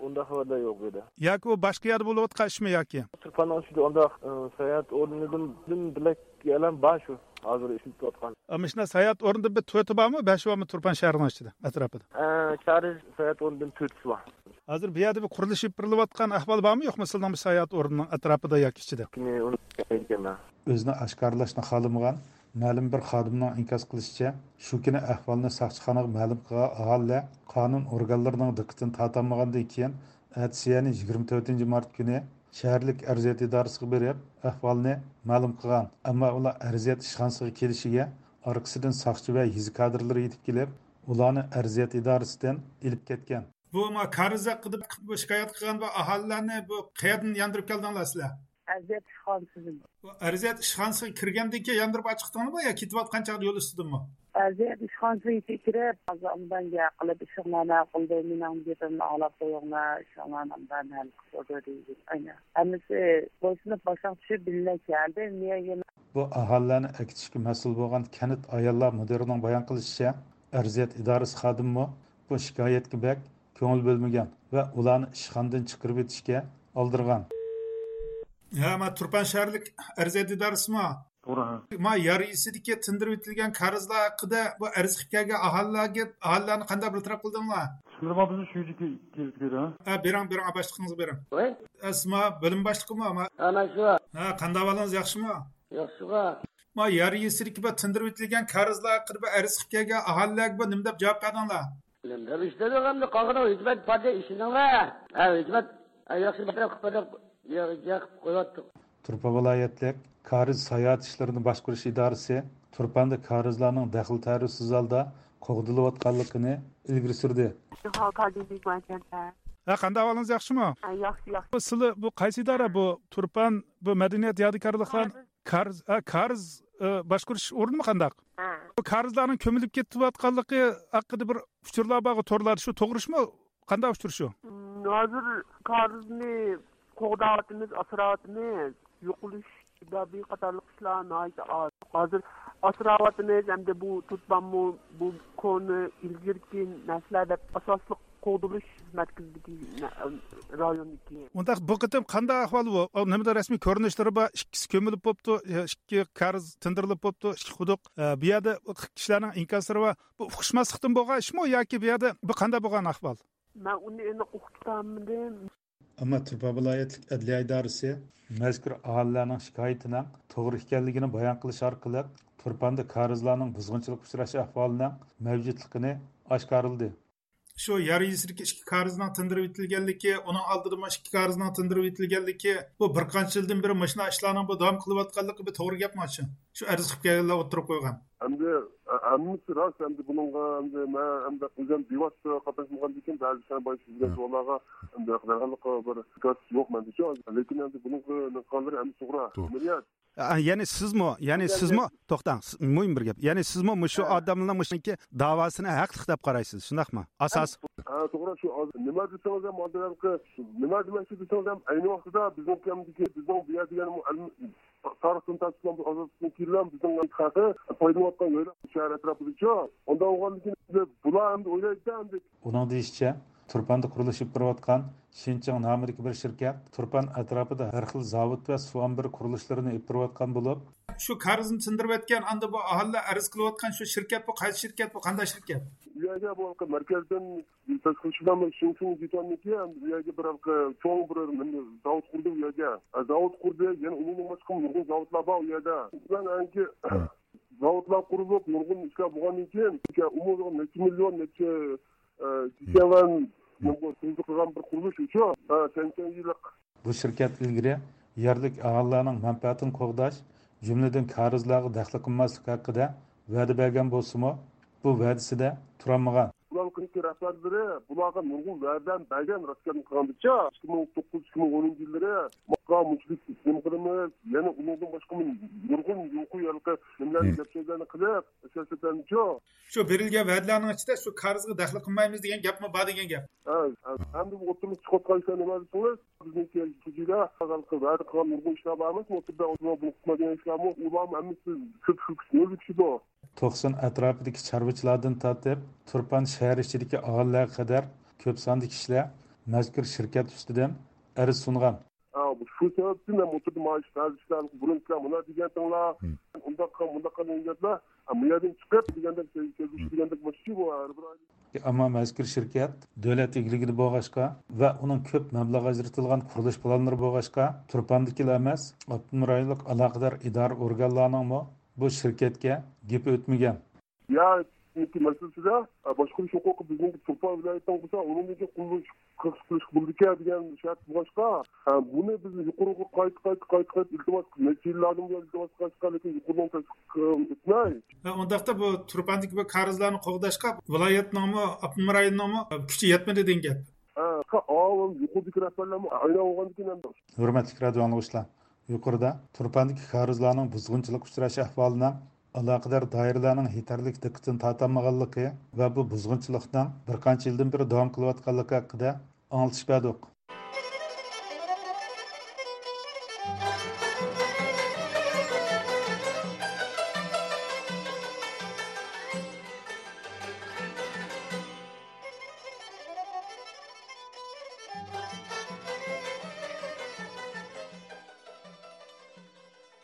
ئۇنداق خەۋەرلەر يوق بۇ يەردە. ياكى ئۇ باشقا يەردە بولۇۋاتقان ئىشمۇ ياكى؟ تۇرپاننىڭ ئىچىدە ئۇنداق، ئە، ساياھەت ئورنىدىن بىر يەرلەر بار شۇ، ھازىر ئىشلىتىۋاتقان. ئا، مۇشۇنداق ساياھەت ئورنىدىن بىر تۆتى بارمۇ، بەشى بارمۇ تۇرپان شەھىرىنىڭ ئىچىدە، ئەتراپىدا؟ ئە، كارىز ساياھەت ئورنىدىن تۆتىسى بار. ھازىر بۇ يەردە بىر قۇرۇلۇش ئېلىپ بېرىلىۋاتقان ئەھۋال بارمۇ، يوقمۇ سىلىنىڭ بۇ ساياھەت ئورنىنىڭ ئەتراپىدا ياكى ئىچىدە؟ ئۇنى، ئۇنى بىلمەيدىكەنمەن. ئۆزىنى ئاشكارىلاشنى خالىمىغان مەلۇم بىر خادىمنىڭ ئىنكاس قىلىشىچە، شۇ كۈنى ئەھۋالنى ساقچىخانىغا مەلۇم قىلغان ئاھالىلەر قانۇن ئورگانلىرىنىڭ دىققىتىنى تارتالمىغاندىن كېيىن، ئەتىسى، يەنى يىگىرمە تۆتىنچى مارت كۈنى شەھەرلىك ئەرزىيەت ئىدارىسىغا بېرىپ، ئەھۋالنى مەلۇم قىلغان. ئەمما ئۇلار ئەرزىيەت ئىشخانىسىغا كېلىشىگە، ئارقىسىدىن ساقچى ۋە يېزا كادىرلىرى يېتىپ كېلىپ، ئۇلارنى ئەرزىيەت ئىدارىسىدىن ئېلىپ كەتكەن. بۇ ما كارىز ھەققىدە بۇ شىكايەت قىلغان بۇ ئاھالىلەرنى بۇ قەيەردىن ياندۇرۇپ كەلدىڭلار سىلەر؟ ئەرزىيەت ئىشخانىسىدىن. بۇ ئەرزىيەت ئىشخانىسىغا كىرگەندىن كېيىن ياندۇرۇپ ئاچىقتىڭلارمۇ يا كېتىۋاتقان چاغدا يول ئۈستىدىنمۇ؟ ئەرزىيەت ئىشخانىسىغا يېتىپ كىرىپ، ھازىر ئاندىن گەپ قىلىپ، ئىشىڭلارنى ھەل قىلدى، مېنىڭ گېپىمنى ئاڭلاپ قويۇڭلار، ئىشىڭلارنى ئاندىن ھەل قىلىپ قويدى دېدى. ئەنە، ھەممىسى بويسۇنۇپ باشلاپ چۈشۈپ بىللە كەلدى. نىيە يەنە؟ بۇ ئاھالىلەرنى ئەكېتىشكە مەسئۇل بولغان كەنت ئاياللار مۇدىرىنىڭ بايان قىلىشىچە، ئەرزىيەت ئىدارىسى خادىمىمۇ بۇ شىكايەتكە بەك كۆڭۈل بۆلمىگەن ۋە ئۇلارنى ئىشخانىدىن چىقىرىۋېتىشكە ئالدىرىغان. ھە، ما تۇرپان شەھەرلىك ئەرزىيەت ئىدارىسىمۇ؟ توغرا، ھە. ما يار يېزىسىدىكى تىندۇرۇۋېتىلگەن كارىزلار ھەققىدە بۇ ئەرز قىلىپ كەلگەن ئاھالىلەرگە، ئاھالىلەرنى قانداق بىر تەرەپ قىلدىڭلار؟ شۇندىمۇ بىزنى شۇ يەرگە كېلىپ كۆرۈڭ. ھە، بېرىڭ، بېرىڭ، باشلىقىڭىزغا بېرىڭ. ۋاي. ھە، سىزما بۆلۈم باشلىقىمۇ؟ ھە، مەن شۇ. ھە، قانداق ئەھۋالىڭىز، ياخشىمۇ؟ ياخشىغا. ما يار يېزىسىدىكى بۇ تىندۇرۇۋېتىلگەن كارىزلار ھەققىدە بىر ئەرز قىلىپ كەلگەن ئاھالىلەرگە بۇ نېمە دەپ جاۋاب بەردىڭلار؟ نېمە دەپ ئىش دېدۇق ئەمدى، قالغىنىغا ھۆكۈمەت باردى، ئىشىنىڭلار. ھە، ھۆكۈمەت، ھە، ياخشى بىر تەرەپ قىلىپ بەردى، يا-، يا قىلىپ قويۇۋاتتۇق. تۇرپان ۋىلايەتلىك كارىز ساياھەت ئىشلىرىنى باشقۇرۇش ئىدارىسى تۇرپاندا كارىزلارنىڭ دەخلى تەرۇزسىز ھالدا قوغدىلىۋاتقانلىقىنى ئىلگىرى سۈردى. ھە، قانداق ئەھۋالىڭىز، ياخشىمۇ؟ ھە، ياخشى، ياخشى. بۇ سىلى، بۇ قايسى ئىدارە بۇ؟ تۇرپان، بۇ مەدەنىيەت يادىكارلىقلار، كارىز. كارىز، ئا، كارىز، ئا، باشقۇرۇش ئورنىمۇ قانداق؟ ھە. بۇ كارىزلارنىڭ كۆمۈلۈپ كېتىۋاتقانلىقى ھەققىدە بىر ئۇچۇرلار بارغۇ، تورلاردا، شۇ توغرىشمۇ؟ قانداق ئۇچۇر شۇ؟ ھازىر كارىزنى قوغداۋاتىمىز، ئاسراۋاتىمىز. يوقىلىش سەۋەبى قاتارلىق ئىشلار ناھايىتى ئاز. ھازىر ئاسراۋاتىمىز ھەمدە بۇ تۇرپانمۇ، بۇ كونا ئىلگىرىكى نەرسىلەر دەپ ئاساسلىق قوغدىلىش مەركىزىدىكى نە-، رايوندىكى. ئۇنداق بۇ قېتىم قانداق ئەھۋال بۇ؟ ئۇ نېمىدە رەسمىي كۆرۈنۈشلىرى بار، ئىككىسى كۆمۈلۈپ بوپتۇ، ئىككى كارىز تىندۇرۇلۇپ بوپتۇ، ئىككى قۇدۇق. ئە، بۇ يەردە كىشىلەرنىڭ ئىنكاسلىرى بار. بۇ ئۇقۇشماسلىقتىن بولغان ئىشمۇ ياكى بۇ يەردە بۇ قانداق بولغان ئەھۋال؟ مەن ئۇنى ئېنىق ئۇقۇپ. ئەمما تۇرپان ۋىلايەتلىك ئەدلىيە ئىدارىسى مەزكۇر ئاھالىلەرنىڭ شىكايىتىنىڭ توغرا ئىكەنلىكىنى بايان قىلىش ئارقىلىق، تۇرپاندا كارىزلارنىڭ بۇزغۇنچىلىققا ئۇچراش ئەھۋالىنىڭ مەۋجۇتلۇقىنى ئاشكارىلىدى. شۇ يار يېزىسىدىكى ئىككى كارىزنىڭ تىندۇرۇپ ئېتىلگەنلىكى، ئۇنىڭ ئالدىدا مۇشۇ ئىككى كارىزنىڭ تىندۇرۇپ ئېتىلگەنلىكى، بۇ بىر قانچە يىلدىن بېرى مۇشۇنداق ئىشلارنىڭ بۇ داۋام قىلىۋاتقانلىقى بۇ توغرا گەپمۇ شۇ؟ شۇ ئەرز قىلىپ كەلگەنلەر ئوتتۇرىغا قويغان. ئەمدى، ھە، ھەممىسى راست. ئەمدى بۇنىڭغا ئەمدى مەن ئەمدى ئۆزۈم بىۋاسىتە قاتناشمىغاندىكىن بەزى كىشىلەر بايا سىزگە سوئاللارغا ئەمدى ھەقىقەتەنلىك بىر گاز يوق مەندىچۇ. لېكىن ئەمدى بۇنىڭغا نېمە قىلغانلىرى ئەمدى توغرا. توغرا. ئەمەلىيەت. ئە، يەنى سىزمۇ، يەنى سىزمۇ، توختاڭ، س-، مۇھىم بىر گەپ. يەنى سىزمۇ مۇشۇ ھە. ئادەمنىڭ مۇشۇنىڭكى داۋاسىنى ھەقلىق دەپ قارايسىز، شۇنداقمۇ؟ ئاساس. ھە، توغرا، شۇ ھازىر نېمە دېسىڭىز ھەم، ھازىر ھېلىقى نېمە دېمەكچى دېسىڭىز ھەم، ئەينى ۋاقتىدا بىزنىڭ كەمدىكى، بىزنىڭ بۇ يەر دېگەن تارىختىن تارتىپ بىز ئازادلىقتىن كېيىنلا بىزنىڭ خەلقى پايدىلىنىۋاتقان يەرلەر شەھەر ئەتراپىدىچۇ. ئۇنداق بولغاندىن كېيىن بۇلار ئەمدى ئويلايدىچۇ ئەمدى. ئۇنىڭ دېيىشىچە، تۇرپاندا قۇرۇلۇش ئېلىپ بېرىۋاتقان شىنچىڭ نامىدىكى بىر شىركەت تۇرپان ئەتراپىدا ھەر خىل زاۋۇت ۋە سۇ ئامبىرى قۇرۇلۇشلىرىنى ئېلىپ بېرىۋاتقان بولۇپ، شۇ كارىزنى تىندۇرۇۋەتكەن، ئاندا بۇ ئاھالىلەر ئەرز قىلىۋاتقان شۇ شىركەت، بۇ قايسى شىركەت، بۇ قانداق شىركەت؟ بۇ يەرگە بۇ مەركەزدىن تەشكىللىشىپ شىنچىڭ جىتوندىكى بۇ يەرگە بىر چوڭ بىر زاۋۇت قۇردى بۇ يەرگە. زاۋۇت قۇردى، يەنە ئۇنىڭدىن باشقا نۇرغۇن زاۋۇتلار بار ئۇ يەردە. مەن ئەنكى زاۋۇتلار قۇرۇلۇپ، نۇرغۇن ئىشلار بولغاندىن كېيىن، ئۇمۇ نەچچە مىليون، نەچچە، ئە، جىكەۋەن، نۇرغۇن تۈزۈلۈپ قىلغان بىر قۇرۇلۇش ئۇچۇ. ھە، سەكسەن يىللىق. بۇ شىركەت ئىلگىرى يەرلىك ئاھالىلەرنىڭ مەنپەئەتىنى قوغداش، جۈملىدىن كارىزلارغا دەخلى قىلماسلىق ھەققىدە ۋەدە بەرگەن بولسىمۇ، بۇ ۋەدىسىدە تۇرالمىغان. بۇلارنىڭ رەھبەرلىرى بۇلارغا نۇرغۇن ۋەدىلەرنى بەرگەن، راست گەپنى قىلغاندىچە، ئىككى مىڭ توققۇز، ئىككى مىڭ ئونىنچى يىللىرى ماقا مۇشۇنداق نېمە قىلىمىز، يەنە ئۇنىڭدىن باشقا نۇرغۇن يۇقىرى ھېلىقى نېمىلەرنى، گەپ سۆزلەرنى قىلىپ، سىياسەتلەرنىچۇ. شۇ بېرىلگەن ۋەدىلەرنىڭ ئىچىدە شۇ كارىزغا دەخلى قىلمايمىز دېگەن گەپمۇ بار دېگەن گەپ. ھە، ھە. ئەمدى بۇ ئوتتۇرىغا چىقىۋاتقان ئىشلار نېمە دېسىڭىز، بىزنىڭكى شۇجىدا ھېلىقى ۋەدە قىلغان نۇرغۇن ئىشلار بارمىز، ئوتتۇرىدا ئۇنىڭ بۇنى قىلمايدىغان ئىشلارمۇ، ئۇلارمۇ ھەممىسى كۆپ شۇ نۆل كىشىدۇ. توقسان ئەتراپىدىكى چارۋىچىلاردىن تارتىپ، تۇرپان شەھەر ئىچىدىكى ئاھالىلەرگە قەدەر كۆپ ساندا كىشىلەر مەزكۇر شىركەت ئۈستىدىن ئەرز سۇنغان. ھە، شۇ سەۋەبتىن مەن ئوتتۇرىدا مانا شۇ بەزى ئىشلار، بۇرۇن ئىشلار مانا دېگەنتىڭلار، ئۇنداق قىل، مۇنداق قىل دېگەن گەپلەر، ھە، بۇ يەردىن چىقىپ دېگەندەك، كەلگۈچى دېگەندەك ماشۇ بۇ ھەر بىر ئايدا. ئەمما مەزكۇر شىركەت دۆلەت ئىگىلىكىدە بولغاچقا ۋە ئۇنىڭ كۆپ مەبلەغ ئاجرىتىلغان قۇرۇلۇش پىلانلىرى بولغاچقا، تۇرپاندىكىلا ئەمەس، ئاپتونوم رايونلۇق ئالاقىدار ئىدارە ئورگانلارنىڭمۇ بۇ شىركەتكە گېپى ئۆتمىگەن. يا مەسىلىسىدە، باشقۇرۇش ھوقۇقى بىزنىڭكى تۇرپان ۋىلايىتىنىڭ بولسا، ئۇنىڭدىن كېيىن قۇرۇلۇش قىلىش بولىدىكەن دېگەن شەرت بولغاچقا، بۇنى بىز يۇقىرىغا قايتا، قايتا، قايتا، قايتا ئىلتىماس، نەچچە يىللاردىن بۇيان ئىلتىماس قىلىۋاتقان، لېكىن يۇقىرىنىڭ تەستىقلىقى ئۆتمەي. ھە، ئۇنداقتا بۇ تۇرپاندىكى بۇ كارىزلارنى قوغداشقا ۋىلايەتنىڭمۇ، ئاپتونوم رايوننىڭمۇ كۈچى يەتمىدى دېگەن گەپ. ھە، ئاۋۇ يۇقىرىدىكى رەھبەرلەرمۇ ئايان بولغاندىكىن ئەمدى. ھۆرمەتلىك رادىئو ئاڭلىغۇچىلار! يۇقىرىدا تۇرپاندىكى كارىزلارنىڭ بۇزغۇنچىلىققا ئۇچراش ئەھۋالىنىڭ ئالاقىدار دائىرىلەرنىڭ يېتەرلىك دىققىتىنى تارتالمىغانلىقى ۋە بۇ بۇزغۇنچىلىقنىڭ بىر قانچە يىلدىن بېرى داۋام قىلىۋاتقانلىقى ھەققىدە ئاڭلىتىش بەردۇق.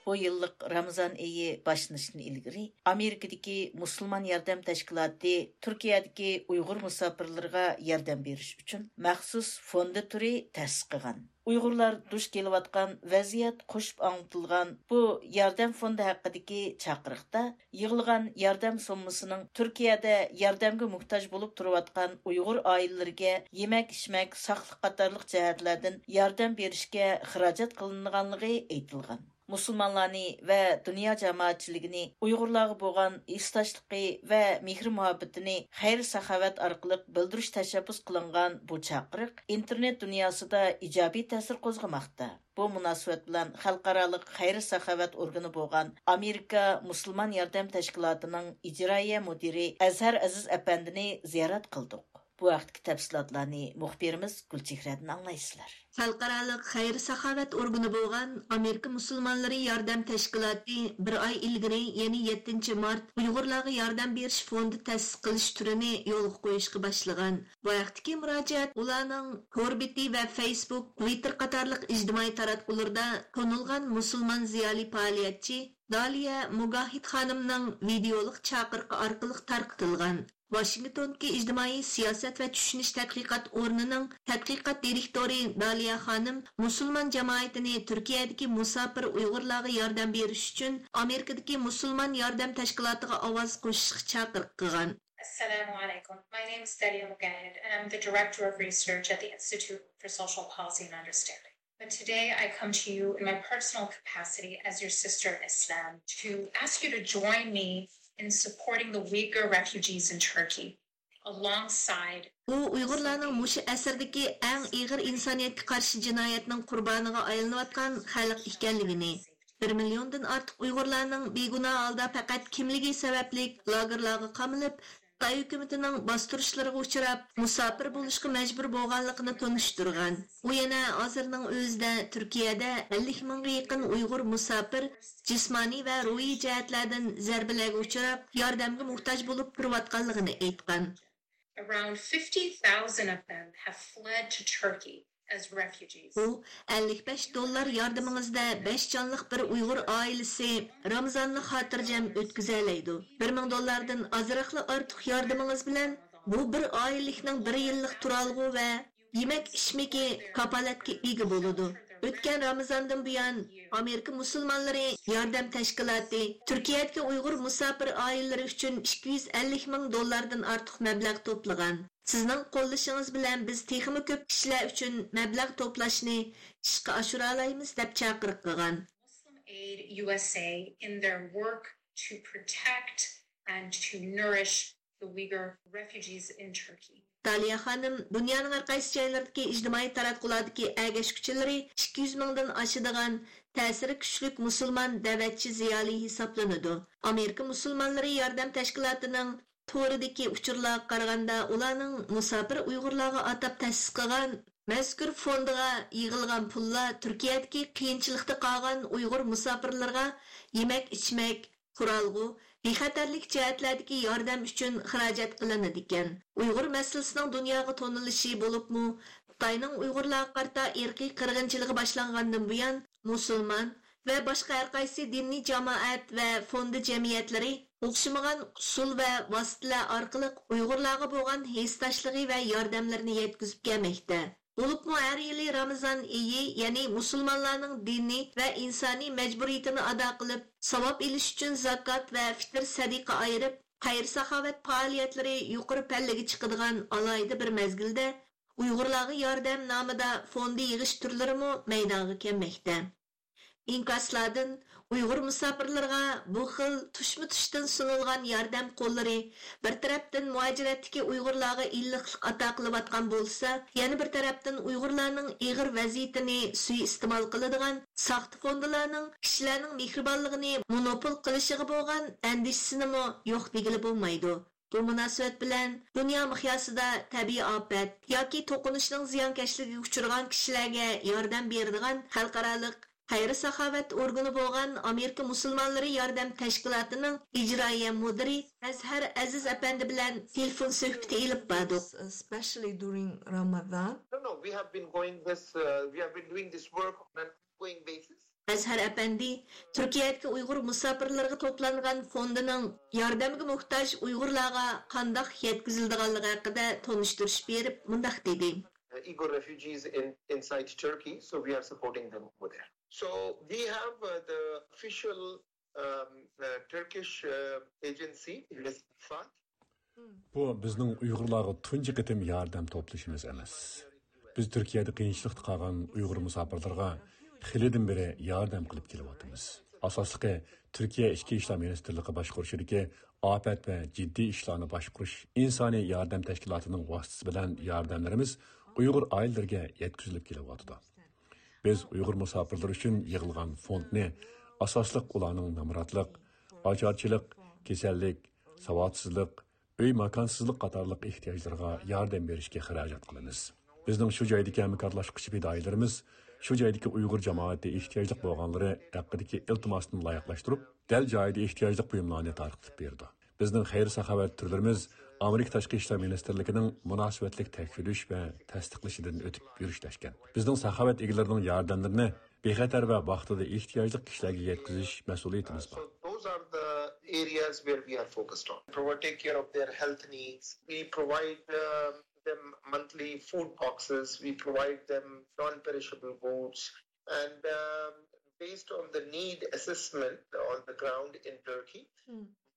بۇ يىللىق رامىزان ئېيى باشلىنىشتىن ئىلگىرى، ئامېرىكىدىكى مۇسۇلمان ياردەم تەشكىلاتى تۈركىيەدىكى ئۇيغۇر مۇساپىرلىرىغا ياردەم بېرىش ئۈچۈن مەخسۇس فوندى تۈرى تەسىس قىلغان. ئۇيغۇرلار دۇچ كېلىۋاتقان ۋەزىيەت قوشۇپ ئاڭلىتىلغان بۇ ياردەم فوندى ھەققىدىكى چاقىرىقتا يىغىلغان ياردەم سوممىسىنىڭ تۈركىيەدە ياردەمگە موھتاج بولۇپ تۇرۇۋاتقان ئۇيغۇر ئائىلىلىرىگە يېمەك-ئىچمەك، ساقلىق قاتارلىق جەھەتلەردىن ياردەم بېرىشكە خىراجەت قىلىنغانلىقى ئېيتىلغان. مۇسۇلمانلارنى ۋە دۇنيا جامائەتچىلىكىنى ئۇيغۇرلارغا بولغان ھېسداشلىقى ۋە مېھرى-مۇھەببىتىنى خەير-ساخاۋەت ئارقىلىق بىلدۈرۈش تەشەببۇس قىلىنغان بۇ چاقىرىق ئىنتېرنېت دۇنياسىدا ئىجابىي تەسىر قوزغىماقتا. بۇ مۇناسىۋەت بىلەن خەلقئارالىق خەير-ساخاۋەت ئورگىنى بولغان ئامېرىكا مۇسۇلمان ياردەم تەشكىلاتىنىڭ ئىجرائىيە مۇدىرى ئەزھەر ئەزىز ئەپەندىنى زىيارەت قىلدۇق. بۇ ھەقتىكى تەپسىلاتلارنى مۇخبىرىمىز گۈلچېھرەدىن ئاڭلايسىلەر. خەلقئارالىق خەير-ساخاۋەت ئورگىنى بولغان ئامېرىكا مۇسۇلمانلىرى ياردەم تەشكىلاتى بىر ئاي ئىلگىرى، يەنى يەتتىنچى مارت، ئۇيغۇرلارغا ياردەم بېرىش فوندى تەسىس قىلىش تۈرىنى يولغا قويۇشقا باشلىغان. بۇ ھەقتىكى مۇراجىئەت ئۇلارنىڭ تور بېتى ۋە فېيسبۇك، تۋىتتېر قاتارلىق ئىجتىمائىي تاراتقۇلىرىدا تونۇلغان مۇسۇلمان زىيالىي پائالىيەتچى دالىيە مۇگاھىد خانىمنىڭ ۋىدېئولۇق چاقىرىقى ئارقىلىق تارقىتىلغان. ۋاشىنگتوندىكى ئىجتىمائىي سىياسەت ۋە چۈشىنىش تەتقىقات ئورنىنىڭ تەتقىقات دىرېكتورى دالىيە خانىم مۇسۇلمان جامائىتىنى تۈركىيەدىكى مۇساپىر ئۇيغۇرلارغا ياردەم بېرىش ئۈچۈن ئامېرىكىدىكى مۇسۇلمان ياردەم تەشكىلاتىغا ئاۋاز قوشۇشقا چاقىرىق قىلغان. Assalamu alaikum. My name is Dalia Mugahid, and I'm the Director of Research at the Institute for Social Policy and Understanding. But today I come to you in my personal capacity as your sister in Islam to ask you to join me in supporting the Uyghur refugees in Turkey alongside ئۇ ئۇيغۇرلارنىڭ مۇشۇ ئەسىردىكى ئەڭ ئېغىر ئىنسانىيەتكە قارشى جىنايەتنىڭ قۇربانىغا ئايلىنىۋاتقان خەلق ئىكەنلىكىنى، بىر مىليوندىن ئارتۇق ئۇيغۇرلارنىڭ بىگۇناھ ھالدا پەقەت كىملىكى سەۋەبلىك لاگېرلارغا قامىلىپ، خىتاي ھۆكۈمىتىنىڭ باستۇرۇشلىرىغا ئۇچراپ، مۇساپىر بولۇشقا مەجبۇر بولغانلىقىنى تونۇشتۇرغان. ئۇ يەنە ھازىرنىڭ ئۆزىدە تۈركىيەدە ئەللىك مىڭغا يېقىن ئۇيغۇر مۇساپىر جىسمانىي ۋە روھىي جەھەتلەردىن زەربىلەرگە ئۇچراپ، ياردەمگە موھتاج بولۇپ تۇرۇۋاتقانلىقىنى ئېيتقان. Around fifty thousand of them have fled to Turkey as refugees. ئۇ، ئەللىك بەش دوللار ياردىمىڭىزدە بەش جانلىق بىر ئۇيغۇر ئائىلىسى رامىزاننى خاتىرجەم ئۆتكۈزەلەيدۇ. بىر مىڭ دوللاردىن ئازراقلا ئارتۇق ياردىمىڭىز بىلەن بۇ بىر ئائىلىلىكنىڭ بىر يىللىق تۇرالغۇ ۋە يېمەك-ئىچمىكى كاپالەتكە ئىگە بولىدۇ. ئۆتكەن رامىزاندىن بۇيان، ئامېرىكا مۇسۇلمانلىرى ياردەم تەشكىلاتى تۈركىيەدىكى ئۇيغۇر مۇساپىر ئائىلىلىرى ئۈچۈن ئىككى يۈز ئەللىك مىڭ دوللاردىن ئارتۇق مەبلەغ توپلىغان. سىزنىڭ قوللىشىڭىز بىلەن بىز تېخىمۇ كۆپ كىشىلەر ئۈچۈن مەبلەغ توپلاشنى ئىشقا ئاشۇرالايمىز، دەپ چاقىرىق قىلغان. Muslim Aid U S A in their work to protect and to nourish the Uyghur refugees in Turkey. دالىيا خانىم دۇنيانىڭ ھەر قايسى جايلىرىدىكى ئىجتىمائىي تاراتقۇلاردىكى ئەگەشكۈچىلىرى ئىككى يۈز مىڭدىن ئاشىدىغان تەسىرى كۈچلۈك مۇسۇلمان دەۋەتچى زىيالىي ھېسابلىنىدۇ. ئامېرىكا مۇسۇلمانلىرى ياردەم تەشكىلاتىنىڭ تورىدىكى ئۇچۇرلارغا قارىغاندا، ئۇلارنىڭ مۇساپىر ئۇيغۇرلارغا ئاتاپ تەسىس قىلغان مەزكۇر فوندىغا يىغىلغان پۇللار تۈركىيەدىكى قىيىنچىلىقتا قالغان ئۇيغۇر مۇساپىرلىرىغا يېمەك-ئىچمەك، تۇرالغۇ، بىخەتەرلىك جەھەتلەردىكى ياردەم ئۈچۈن خىراجەت قىلىنىدىكەن. ئۇيغۇر مەسىلىسىنىڭ دۇنياغا تونۇلۇشى، بولۇپمۇ خىتاينىڭ ئۇيغۇرلارغا قارىتا ئىرقىي قىرغىنچىلىقى باشلانغاندىن بۇيان، مۇسۇلمان ۋە باشقا ھەر قايسى دىنىي جامائەت ۋە فوندى جەمئىيەتلىرى ئوخشىمىغان ئۇسۇل ۋە ۋاسىتىلەر ئارقىلىق ئۇيغۇرلارغا بولغان ھېسداشلىقى ۋە ياردەملىرىنى يەتكۈزۈپ كەلمەكتە. بولۇپمۇ ھەر يىلى رامىزان ئېيى، يەنى مۇسۇلمانلارنىڭ دىنىي ۋە ئىنسانىي مەجبۇرىيىتىنى ئادا قىلىپ، ساۋاب ئېلىش ئۈچۈن زاكات ۋە فىتىر سەدىقە ئايرىپ، خەير-ساخاۋەت پائالىيەتلىرى يۇقىرى پەللىگە چىقىدىغان ئالاھىدە بىر مەزگىلدە، ئۇيغۇرلارغا ياردەم نامىدا فوندى يىغىش تۈرلىرىمۇ مەيدانغا كەلمەكتە. ئىنكاسلاردىن ئۇيغۇر مۇساپىرلىرىغا بۇ خىل تۇشمۇتۇشتىن سۇنۇلغان ياردەم قوللىرى بىر تەرەپتىن مۇھاجىرەتتىكى ئۇيغۇرلارغا ئىللىقلىق ئاتا قىلىۋاتقان بولسا، يەنە بىر تەرەپتىن ئۇيغۇرلارنىڭ ئېغىر ۋەزىيىتىنى سۇيىئىستېمال قىلىدىغان ساختا فوندىلارنىڭ كىشىلەرنىڭ مېھرىبانلىقىنى مونوپول قىلىشىغا بولغان ئەندىشىسىنىمۇ يوق دېگىلى بولمايدۇ. بۇ مۇناسىۋەت بىلەن دۇنيا مىقياسىدا تەبىئىي ئاپەت ياكى توقۇنۇشنىڭ زىيانكەشلىكىگە ئۇچرىغان كىشىلەرگە ياردەم بېرىدىغان خەلقئارالىق خەير-ساخاۋەت ئورگىنى بولغان ئامېرىكا مۇسۇلمانلىرى ياردەم تەشكىلاتىنىڭ ئىجرائىيە مۇدىرى ئەزھەر ئەزىز ئەپەندى بىلەن تېلېفون سۆھبىتى ئېلىپ باردۇق. Especially during Ramadan. No, no, we have been going this, uh, we have been doing this work on an ongoing basis. ئەزھەر ئەپەندى تۈركىيەدىكى ئۇيغۇر مۇساپىرلىرىغا توپلانغان فوندىنىڭ ياردەمگە موھتاج ئۇيغۇرلارغا قانداق يەتكۈزۈلىدىغانلىقى ھەققىدە تونۇشتۇرۇش بېرىپ مۇنداق دېدى. Uh, Uyghur refugees in, inside Turkey, so we are supporting them over there. So we have, uh, the official, um, uh, Turkish, uh, agency, Rescue Fund. بۇ بىزنىڭ ئۇيغۇرلارغا تۇنجى قېتىم ياردەم توپلىشىمىز ئەمەس. بىز تۈركىيەدە قىيىنچىلىقتا قالغان ئۇيغۇر مۇساپىرلىرىغا خېلىدىن بېرى ياردەم قىلىپ كېلىۋاتىمىز. ئاساسلىقى، تۈركىيە ئىچكى ئىشلار مىنىستىرلىقى باشقۇرۇشىدىكى ئاپەت ۋە جىددىي ئىشلارنى باشقۇرۇش ئىنسانىي ياردەم تەشكىلاتىنىڭ ۋاسىتىسى بىلەن ياردەملىرىمىز ئۇيغۇر ئائىلىلىرىگە يەتكۈزۈلۈپ كېلىۋاتىدۇ. بىز ئۇيغۇر مۇساپىرلىرى ئۈچۈن يىغىلغان فوندنى ئاساسلىق ئۇلارنىڭ نامراتلىق، ئاچارچىلىق، كېسەللىك، ساۋاتسىزلىق، ئۆي ماكانسىزلىق قاتارلىق ئېھتىياجلىرىغا ياردەم بېرىشكە خىراجەت قىلىمىز. بىزنىڭ شۇ جايدىكى ھەمكارلاشقۇچى پىدائىيلىرىمىز شۇ جايدىكى ئۇيغۇر جامائىتى ئېھتىياجلىق بولغانلىرى ھەققىدىكى ئىلتىماسنى لايىقلاشتۇرۇپ، دەل جايىدا ئېھتىياجلىق بۇيۇملارنى تارقىتىپ بېرىدۇ. بىزنىڭ خەير-ساخاۋەت تۈرلىرىمىز ئامېرىكا تاشقى ئىشلار مىنىستىرلىكىنىڭ مۇناسىۋەتلىك تەكشۈرۈش ۋە تەستىقلىشىدىن ئۆتۈپ يۈرۈشلەشكەن. بىزنىڭ ساخاۋەت ئىگىلىرىنىڭ ياردەملىرىنى بىخەتەر ۋە ۋاقتىدا ئېھتىياجلىق كىشىلەرگە يەتكۈزۈش مەسئۇلىيىتىمىز بار. So those are the areas where we are focused on. Provide, take care of their health needs. We provide um, them monthly food boxes. We provide them non-perishable goods. And um, based on the need assessment on the ground in Turkey,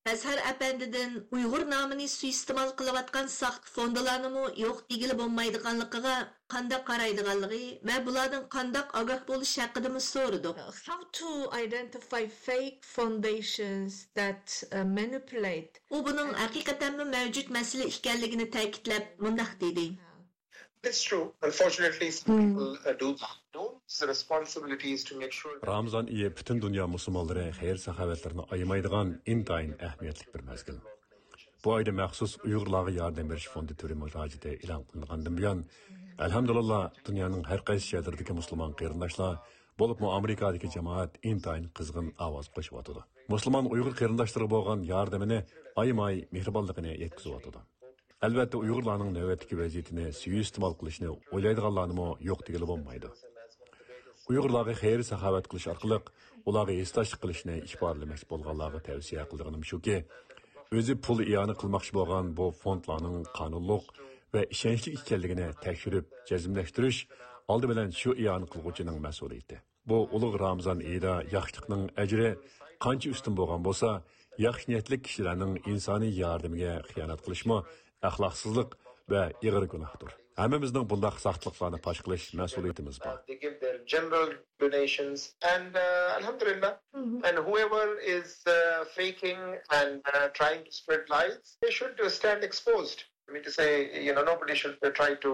ئەزھەر ئەپەندىدىن ئۇيغۇر نامىنى سۇيىئىستېمال قىلىۋاتقان ساختا فوندىلارنىمۇ يوق دېگىلى بولمايدىغانلىقىغا قانداق قارايدىغانلىقى ۋە بۇلاردىن قانداق ئاگاھ بولۇش ھەققىدىمۇ سورىدۇق. How to identify fake foundations that uh, manipulate. ئۇ بۇنىڭ ھەقىقەتەنمۇ مەۋجۇت مەسىلە ئىكەنلىكىنى تەكىتلەپ مۇنداق دېدى. It's true. Unfortunately, some people uh, do that. Those responsibilities to make sure that رامىزان ئېيى پۈتۈن دۇنيا مۇسۇلمانلىرى خەير-ساخاۋەتلىرىنى ئايىمايدىغان ئىنتايىن ئەھمىيەتلىك بىر مەزگىل. بۇ ئايدا مەخسۇس ئۇيغۇرلارغا ياردەم بېرىش فوندى تۈرى مۇراجىئىتى ئېلان قىلىنغاندىن بۇيان، ئەلھەمدۇلىللا، دۇنيانىڭ ھەر قايسى شەھىرىدىكى مۇسۇلمان قېرىنداشلار، بولۇپمۇ ئامېرىكادىكى جامائەت ئىنتايىن قىزغىن ئاۋاز قوشۇۋاتىدۇ. مۇسۇلمان ئۇيغۇر قېرىنداشلىرىغا بولغان ياردىمىنى ئايىماي مېھرىبانلىقىنى يەتكۈزۈۋاتىدۇ. ئەلۋەتتە، ئۇيغۇرلارنىڭ نۆۋەتتىكى ۋەزىيىتىنى سۇيىئىستېمال قىلىشنى ئويلايدىغانلارنىمۇ يوق دېگىلى بولمايدۇ. ئۇيغۇرلارغا خەير-ساخاۋەت قىلىش ئارقىلىق ئۇلارغا ھېسداشلىق قىلىشنى ئىپادىلىمەكچى بولغانلارغا تەۋسىيە قىلىدىغىنىم شۇكى، ئۆزى پۇل ئىئانە قىلماقچى بولغان بۇ فوندلارنىڭ قانۇنلۇق ۋە ئىشەنچلىك ئىكەنلىكىنى تەكشۈرۈپ جەزملەشتۈرۈش ئالدى بىلەن شۇ ئىئانە قىلغۇچىنىڭ مەسئۇلىيىتى. بۇ ئۇلۇغ رامىزان ئېيىدا ياخشىلىقنىڭ ئەجرى قانچە ئۈستۈن بولغان بولسا، ياخشى نىيەتلىك كىشىلەرنىڭ ئىنسانىي ياردىمىگە خىيانەت قىلىشمۇ ئەخلاقسىزلىق ۋە ئېغىر گۇناھتۇر. ھەممىمىزنىڭ بۇنداق ساختىلىقلارنى پاش قىلىش مەسئۇلىيىتىمىز بار. They give their general donations and uh, Alhamdulillah. And whoever is uh, faking and uh, trying to spread lies, they should uh, stand exposed. I mean to say, you know, nobody should uh, try to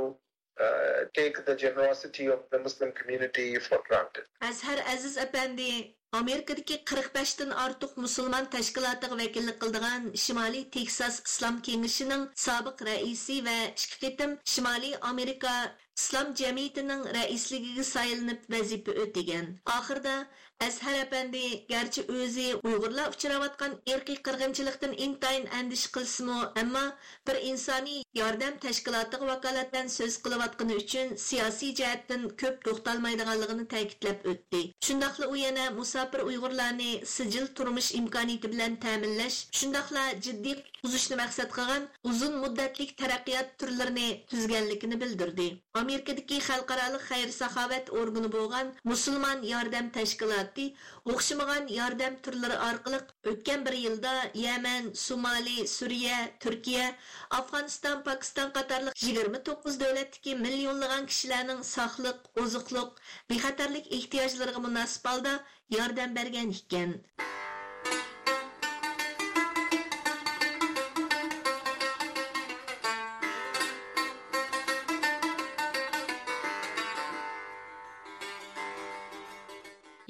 uh, take the generosity of the Muslim community for granted. ئەزھەر ئەزىز ئەپەندى ئامېرىكىدىكى قىرىق بەشتىن ئارتۇق مۇسۇلمان تەشكىلاتىغا ۋەكىللىك قىلىدىغان شىمالىي تېكساس ئىسلام كېڭىشىنىڭ سابىق رەئىسى ۋە ئىككى قېتىم شىمالىي ئامېرىكا ئىسلام جەمئىيىتىنىڭ رەئىسلىكىگە سايلىنىپ ۋەزىپە ئۆتىگەن. ئاخىرىدا ئەزھەر ئەپەندى گەرچە ئۆزى ئۇيغۇرلار ئۇچراۋاتقان ئىرقىي قىرغىنچىلىقتىن ئىنتايىن ئەندىشە قىلسىمۇ، ئەمما بىر ئىنسانىي ياردەم تەشكىلاتىغا ۋاكالىتەن سۆز قىلىۋاتقىنى ئۈچۈن سىياسىي جەھەتتىن كۆپ توختالمايدىغانلىقىنى تەكىتلەپ ئۆتتى. شۇنداقلا ئۇ يەنە مۇساپىر ئۇيغۇرلارنى سىجىل تۇرمۇش ئىمكانىيىتى بىلەن تەمىنلەش، شۇنداقلا جىددىي قۇتقۇزۇشنى مەقسەت قىلغان ئۇزۇن مۇددەتلىك تەرەققىيات تۈرلىرىنى تۈزگەنلىكىنى بىلدۈردى. ئامېرىكىدىكى خەلقئارالىق خەير-ساخاۋەت ئورگىنى بولغان مۇسۇلمان ياردەم تەشكىلاتى ئوخشىمىغان ياردەم تۈرلىرى ئارقىلىق ئۆتكەن بىر يىلدا يەمەن، سومالى، سۈرىيە، تۈركىيە، ئافغانىستان، پاكىستان قاتارلىق يىگىرمە توققۇز دۆلەتتىكى مىليونلىغان كىشىلەرنىڭ ساقلىق، ئوزۇقلۇق، بىخەتەرلىك ئېھتىياجلىرىغا مۇناسىپ ھالدا ياردەم بەرگەن ئىكەن.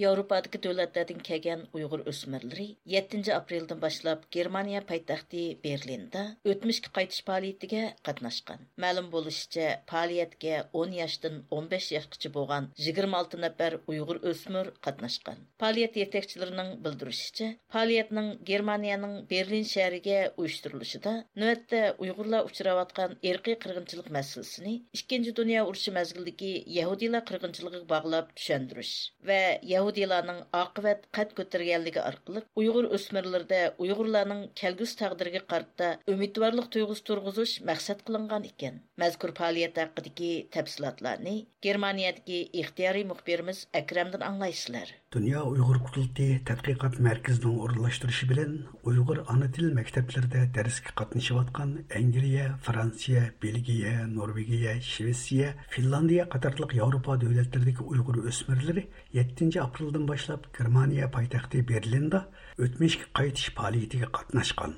ياۋروپادىكى دۆلەتلەردىن كەلگەن ئۇيغۇر ئۆسمۈرلىرى يەتتىنچى ئاپرېلدىن باشلاپ گېرمانىيە پايتەختى بېرلىندا ئۆتمۈشكە قايتىش پائالىيىتىگە قاتناشقان. مەلۇم بولۇشىچە، پائالىيەتكە ئون ياشتىن ئون بەش ياشقىچە بولغان يىگىرمە ئالتە نەپەر ئۇيغۇر ئۆسمۈر قاتناشقان. پائالىيەت يېتەكچىلىرىنىڭ بىلدۈرۈشىچە، پائالىيەتنىڭ گېرمانىيەنىڭ بېرلىن شەھىرىگە ئۇيۇشتۇرۇلۇشىدا نۆۋەتتە ئۇيغۇرلار ئۇچراۋاتقان ئىرقىي قىرغىنچىلىق مەسىلىسىنى ئىككىنچى دۇنيا ئۇرۇشى مەزگىلىدىكى يەھۇدىيلار قىرغىنچىلىقىغا باغلاپ چۈشەندۈرۈش ۋە يەھۇدىيلارنىڭ ئاقىۋەت قەد كۆتۈرگەنلىكى ئارقىلىق ئۇيغۇر ئۆسمۈرلىرىدە ئۇيغۇرلارنىڭ كەلگۈسى تەقدىرىگە قارىتا ئۈمىدۋارلىق تۇيغۇسى تۇرغۇزۇش مەقسەت قىلىنغان ئىكەن. مەزكۇر پائالىيەت ھەققىدىكى تەپسىلاتلارنى گېرمانىيەدىكى ئىختىيارىي مۇخبىرىمىز ئەكرەمدىن ئاڭلايسىلەر. دۇنيا ئۇيغۇر قۇرۇلتىيى تەتقىقات مەركىزىنىڭ ئورۇنلاشتۇرۇشى بىلەن ئۇيغۇر ئانا تىل مەكتەپلىرىدە دەرسكە قاتنىشىۋاتقان ئەنگلىيە، فرانسىيە، بېلگىيە، نورۋېگىيە، شىۋېتسىيە، فىنلاندىيە قاتارلىق ياۋروپا دۆلەتلىرىدىكى ئۇيغۇر ئۆسمۈرلىرى يەتتىنچى ئاپرېلدىن باشلاپ گېرمانىيە پايتەختى بېرلىندا ئۆتمۈشكە قايتىش پائالىيىتىگە قاتناشقان.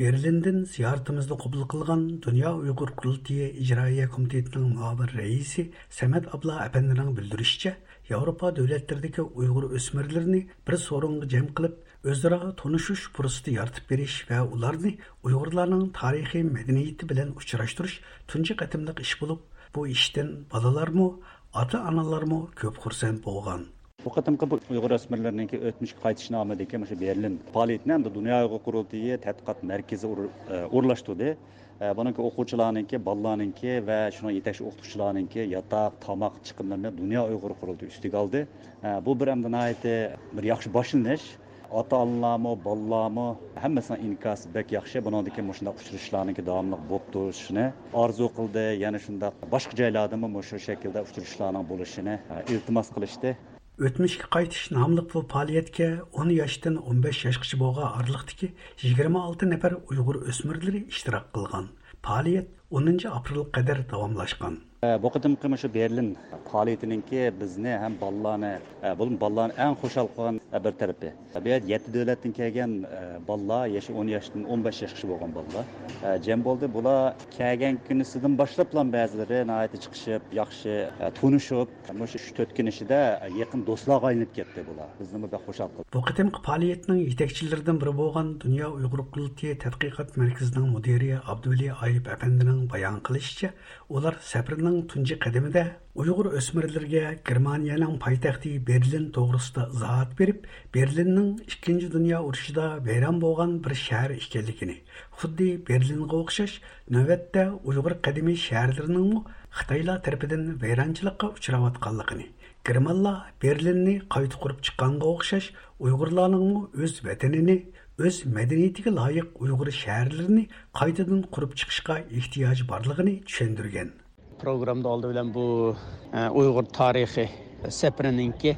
بېرلىندىن زىيارىتىمىزنى قوبۇل قىلغان دۇنيا ئۇيغۇر قۇرۇلتىيى ئىجرائىيە كومىتېتىنىڭ مۇئاۋىن رەئىسى سەمەت ئابلا ئەپەندىنىڭ بىلدۈرۈشىچە، ياۋروپا دۆلەتلىرىدىكى ئۇيغۇر ئۆسمۈرلىرىنى بىر سورۇنغا جەم قىلىپ، ئۆزئارا تونۇشۇش پۇرسىتى يارىتىپ بېرىش ۋە ئۇلارنى ئۇيغۇرلارنىڭ تارىخىي مەدەنىيىتى بىلەن ئۇچراشتۇرۇش تۇنجى قېتىملىق ئىش بولۇپ، بۇ ئىشتىن بالىلارمۇ، ئاتا-ئانىلارمۇ كۆپ خۇرسەن بولغان. بۇ قېتىمقى بۇ ئۇيغۇر ئۆسمۈرلىرىنىڭكى ئۆتمۈشكە قايتىش نامىدىكى مۇشۇ بېرلىن پائالىيىتىنى ئەمدى دۇنيا ئۇيغۇر قۇرۇلتىيى تەتقىقات مەركىزى ئور-، ئە، ئورۇنلاشتۇردى. ئە، بۇنىڭكى ئوقۇغۇچىلارنىڭكى، بالىلارنىڭكى ۋە شۇنىڭ يېتەكچى ئوقۇتقۇچىلارنىڭكى ياتاق، تاماق چىقىملىرىنى دۇنيا ئۇيغۇر قۇرۇلتىيى ئۈستىگە ئالدى. ئە، بۇ بىر ئەمدى ناھايىتى بىر ياخشى باشلىنىش. ئاتا-ئانىلارمۇ، بالىلارمۇ ھەممىسىنىڭ ئىنكاسى بەك ياخشى. بۇنىڭدىن كېيىن مۇشۇنداق ئۇچرىشىشلارنىڭكى داۋاملىق بولۇپ تۇرۇشىنى ئارزۇ قىلدى. يەنە شۇنداق باشقا جايلاردىمۇ مۇشۇ شەكىلدە ئۇچرىشىشلارنىڭ بولۇشىنى، ئە، ئىلتىماس قىلىشتى. ئۆتمۈشكە قايتىش ناملىق بۇ پائالىيەتكە ئون ياشتىن ئون بەش ياشقىچە بولغان ئارىلىقتىكى يىگىرمە ئالتە نەپەر ئۇيغۇر ئۆسمۈرلىرى ئىشتىراك قىلغان. پائالىيەت ئونىنچى ئاپرېلغا قەدەر داۋاملاشقان. بۇ قېتىمقى مۇشۇ بېرلىن پائالىيىتىنىڭكى بىزنى ھەم بالىلارنى، بولۇپمۇ بالىلارنى ئەڭ خۇشال قىلغان بىر تەرىپى، بۇ يەردە يەتتە دۆلەتتىن كەلگەن بالىلار، يېشى ئون ياشتىن ئون بەش ياشقىچە بولغان بالىلار جەم بولدى. بۇلار كەلگەن كۈنىسىدىن باشلاپلا بەزىلىرى ناھايىتى چىقىشىپ، ياخشى تونۇشۇپ، مۇشۇ ئۈچ تۆت كۈن ئىچىدە يېقىن دوستلارغا ئايلىنىپ كەتتى بۇلار. بىزنىمۇ بەك خۇشال قىلدى. بۇ قېتىمقى پائالىيەتنىڭ يېتەكچىلىرىدىن بىرى بولغان دۇنيا ئۇيغۇر قۇرۇلتىيى تەتقىقات مەركىزىنىڭ مۇدىرى ئابدۇۋەلى ئايۇپ ئەپەندىنىڭ بايان قىلىشىچە، ئۇلار سەپىرىنىڭ تۇنجى قەدىمىدە ئۇيغۇر ئۆسمۈرلىرىگە گېرمانىيەنىڭ پايتەختى بېرلىن توغرىسىدا ئىزاھات بېرىپ، بېرلىننىڭ ئىككىنچى دۇنيا ئۇرۇشىدا ۋەيران بولغان بىر شەھەر ئىكەنلىكىنى، خۇددى بېرلىنغا ئوخشاش، نۆۋەتتە ئۇيغۇر قەدىمىي شەھەرلىرىنىڭمۇ خىتايلار تەرىپىدىن ۋەيرانچىلىققا ئۇچراۋاتقانلىقىنى، گېرمانلار بېرلىننى قايتا قۇرۇپ چىققانغا ئوخشاش، ئۇيغۇرلارنىڭمۇ ئۆز ۋەتىنىنى، ئۆز مەدەنىيىتىگە لايىق ئۇيغۇر شەھەرلىرىنى قايتىدىن قۇرۇپ چىقىشقا ئېھتىياجى بارلىقىنى چۈشەندۈرگەن. پروگراممىدا ئالدى بىلەن بۇ، ئە، ئۇيغۇر تارىخى سەپىرىنىڭكى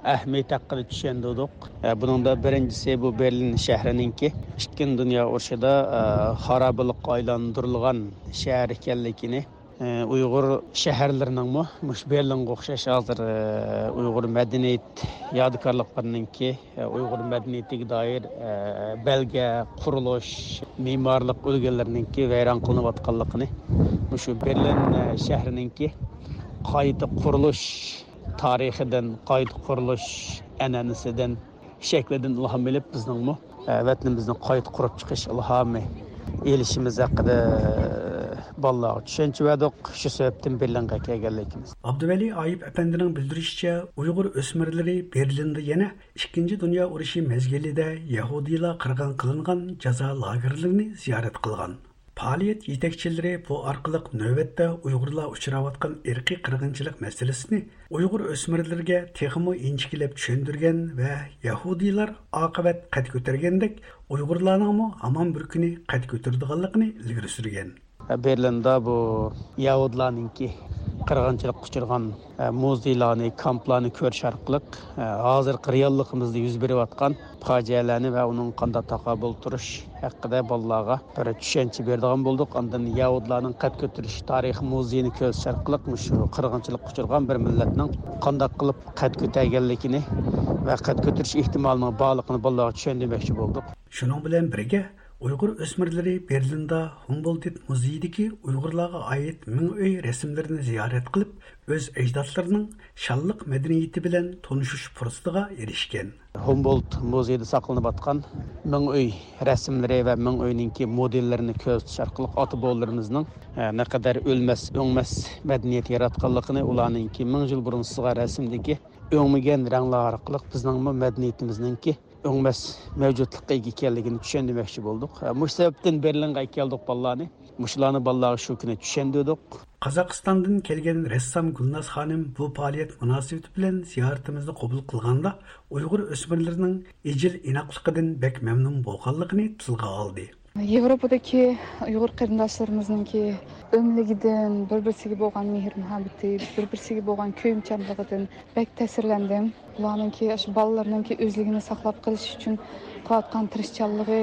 ئەھمىيىتى ھەققىدە چۈشەندۈردۇق. ئە، بۇنىڭدا بىرىنچىسى بۇ بېرلىن شەھىرىنىڭكى ئىككىنچى دۇنيا ئۇرۇشىدا، ئە، خارابىلىققا ئايلاندۇرۇلغان شەھەر ئىكەنلىكىنى، ئە، ئۇيغۇر شەھەرلىرىنىڭمۇ مۇشۇ بېرلىنغا ئوخشاش ھازىر، ئە، ئۇيغۇر مەدەنىيەت يادىكارلىقلىرىنىڭكى، ئە، ئۇيغۇر مەدەنىيىتىگە دائىر، ئە، بەلگە، قۇرۇلۇش، مېمارلىق ئۈلگىلىرىنىڭكى ۋەيران قىلىنىۋاتقانلىقىنى، مۇشۇ بېرلىن، ئە، شەھىرىنىڭكى قايتا قۇرۇلۇش تارىخىدىن، قايتا قۇرۇلۇش ئەنئەنىسىدىن، شەكلىدىن ئىلھام ئېلىپ، بىزنىڭمۇ، ئە، ۋەتىنىمىزنى قايتا قۇرۇپ چىقىش ئىلھامى ئېلىشىمىز ھەققىدە، ئە، بالىلارغا چۈشەنچە بەردۇق. شۇ سەۋەبتىن بېرلىنغا كەلگەنلىكىمىز. ئابدۇۋەلى ئايۇپ ئەپەندىنىڭ بىلدۈرۈشىچە، ئۇيغۇر ئۆسمۈرلىرى بېرلىندا يەنە ئىككىنچى دۇنيا ئۇرۇشى مەزگىلىدە يەھۇدىيلار قىرغىن قىلىنغان جازا لاگېرلىرىنى زىيارەت قىلغان. پائالىيەت يېتەكچىلىرى بۇ ئارقىلىق نۆۋەتتە ئۇيغۇرلار ئۇچراۋاتقان ئىرقىي قىرغىنچىلىق مەسىلىسىنى ئۇيغۇر ئۆسمۈرلىرىگە تېخىمۇ ئىنچىكىلەپ چۈشەندۈرگەن ۋە يەھۇدىيلار ئاقىۋەت قەد كۆتۈرگەندەك، ئۇيغۇرلارنىڭمۇ ھامان بىر كۈنى قەد كۆتۈرىدىغانلىقىنى ئىلگىرى سۈرگەن. بېرلىندا بۇ يەھۇدىيلارنىڭكى قىرغىنچىلىققا ئۇچرىغان، ئە، مۇزېيلارنى، كامپلارنى كۆرۈش ئارقىلىق، ئە، ھازىرقى رېئاللىقىمىزدا يۈز بېرىۋاتقان پاجىئەلەرنى ۋە ئۇنىڭغا قانداق تاقابىل تۇرۇش ھەققىدە بالىلارغا بىر چۈشەنچە بېرىدىغان بولدۇق. ئاندىن يەھۇدىيلارنىڭ قەد كۆتۈرۈش تارىخىي مۇزېيىنى كۆرسىتىش ئارقىلىق مۇشۇ قىرغىنچىلىققا ئۇچرىغان بىر مىللەتنىڭ قانداق قىلىپ قەد كۆتەرگەنلىكىنى ۋە قەد كۆتۈرۈش ئېھتىمالىنىڭ بارلىقىنى بالىلارغا چۈشەندۈرمەكچى بولدۇق. شۇنىڭ بىلەن بىرگە، ئۇيغۇر ئۆسمۈرلىرى بېرلىندا ھۇمبولدت مۇزېيىدىكى ئۇيغۇرلارغا ئائىت مىڭ ئۆي رەسىملىرىنى زىيارەت قىلىپ، ئۆز ئەجدادلىرىنىڭ شانلىق مەدەنىيىتى بىلەن تونۇشۇش پۇرسىتىغا ئېرىشكەن. ھۇمبولت مۇزېيىدا ساقلىنىۋاتقان مىڭ ئۆي رەسىملىرى ۋە مىڭ ئۆينىڭكى مودېللىرىنى كۆرسىتىش ئارقىلىق ئاتا-بوۋىلىرىمىزنىڭ، ئە، نەقەدەر ئۆلمەس، ئۆڭمەس مەدەنىيەت ياراتقانلىقىنى، ئۇلارنىڭكى مىڭ يىل بۇرۇن سىزغان رەسىمدىكى ئۆڭمىگەن رەڭلەر ئارقىلىق بىزنىڭمۇ مەدەنىيىتىمىزنىڭكى ئۆڭمەس مەۋجۇتلۇققا ئىگە ئىكەنلىكىنى چۈشەندۈرمەكچى بولدۇق. مۇشۇ سەۋەبتىن بېرلىنغا ئەكەلدۇق بالىلارنى. مۇشۇلارنى بالىلارغا شۇ كۈنى چۈشەندۈردۇق. قازاقىستاندىن كەلگەن رەسسام گۈلناز خانىم بۇ پائالىيەت مۇناسىۋىتى بىلەن زىيارىتىمىزنى قوبۇل قىلغاندا، ئۇيغۇر ئۆسمۈرلىرىنىڭ ئىجىل ئىناقلىقىدىن بەك مەمنۇن بولغانلىقىنى تىلغا ئالدى. ياۋروپادىكى ئۇيغۇر قېرىنداشلىرىمىزنىڭكى ئۆملۈكىدىن، بىر-بىرسىگە بولغان مېھىر-مۇھەببىتى، بىر-بىرسىگە بولغان كۆيۈمچانلىقىدىن بەك تەسىرلەندىم. بۇلارنىڭكى، ئاشۇ بالىلىرىنىڭكى ئۆزلۈكىنى ساقلاپ قېلىش ئۈچۈن قىلىۋاتقان تىرىشچانلىقى،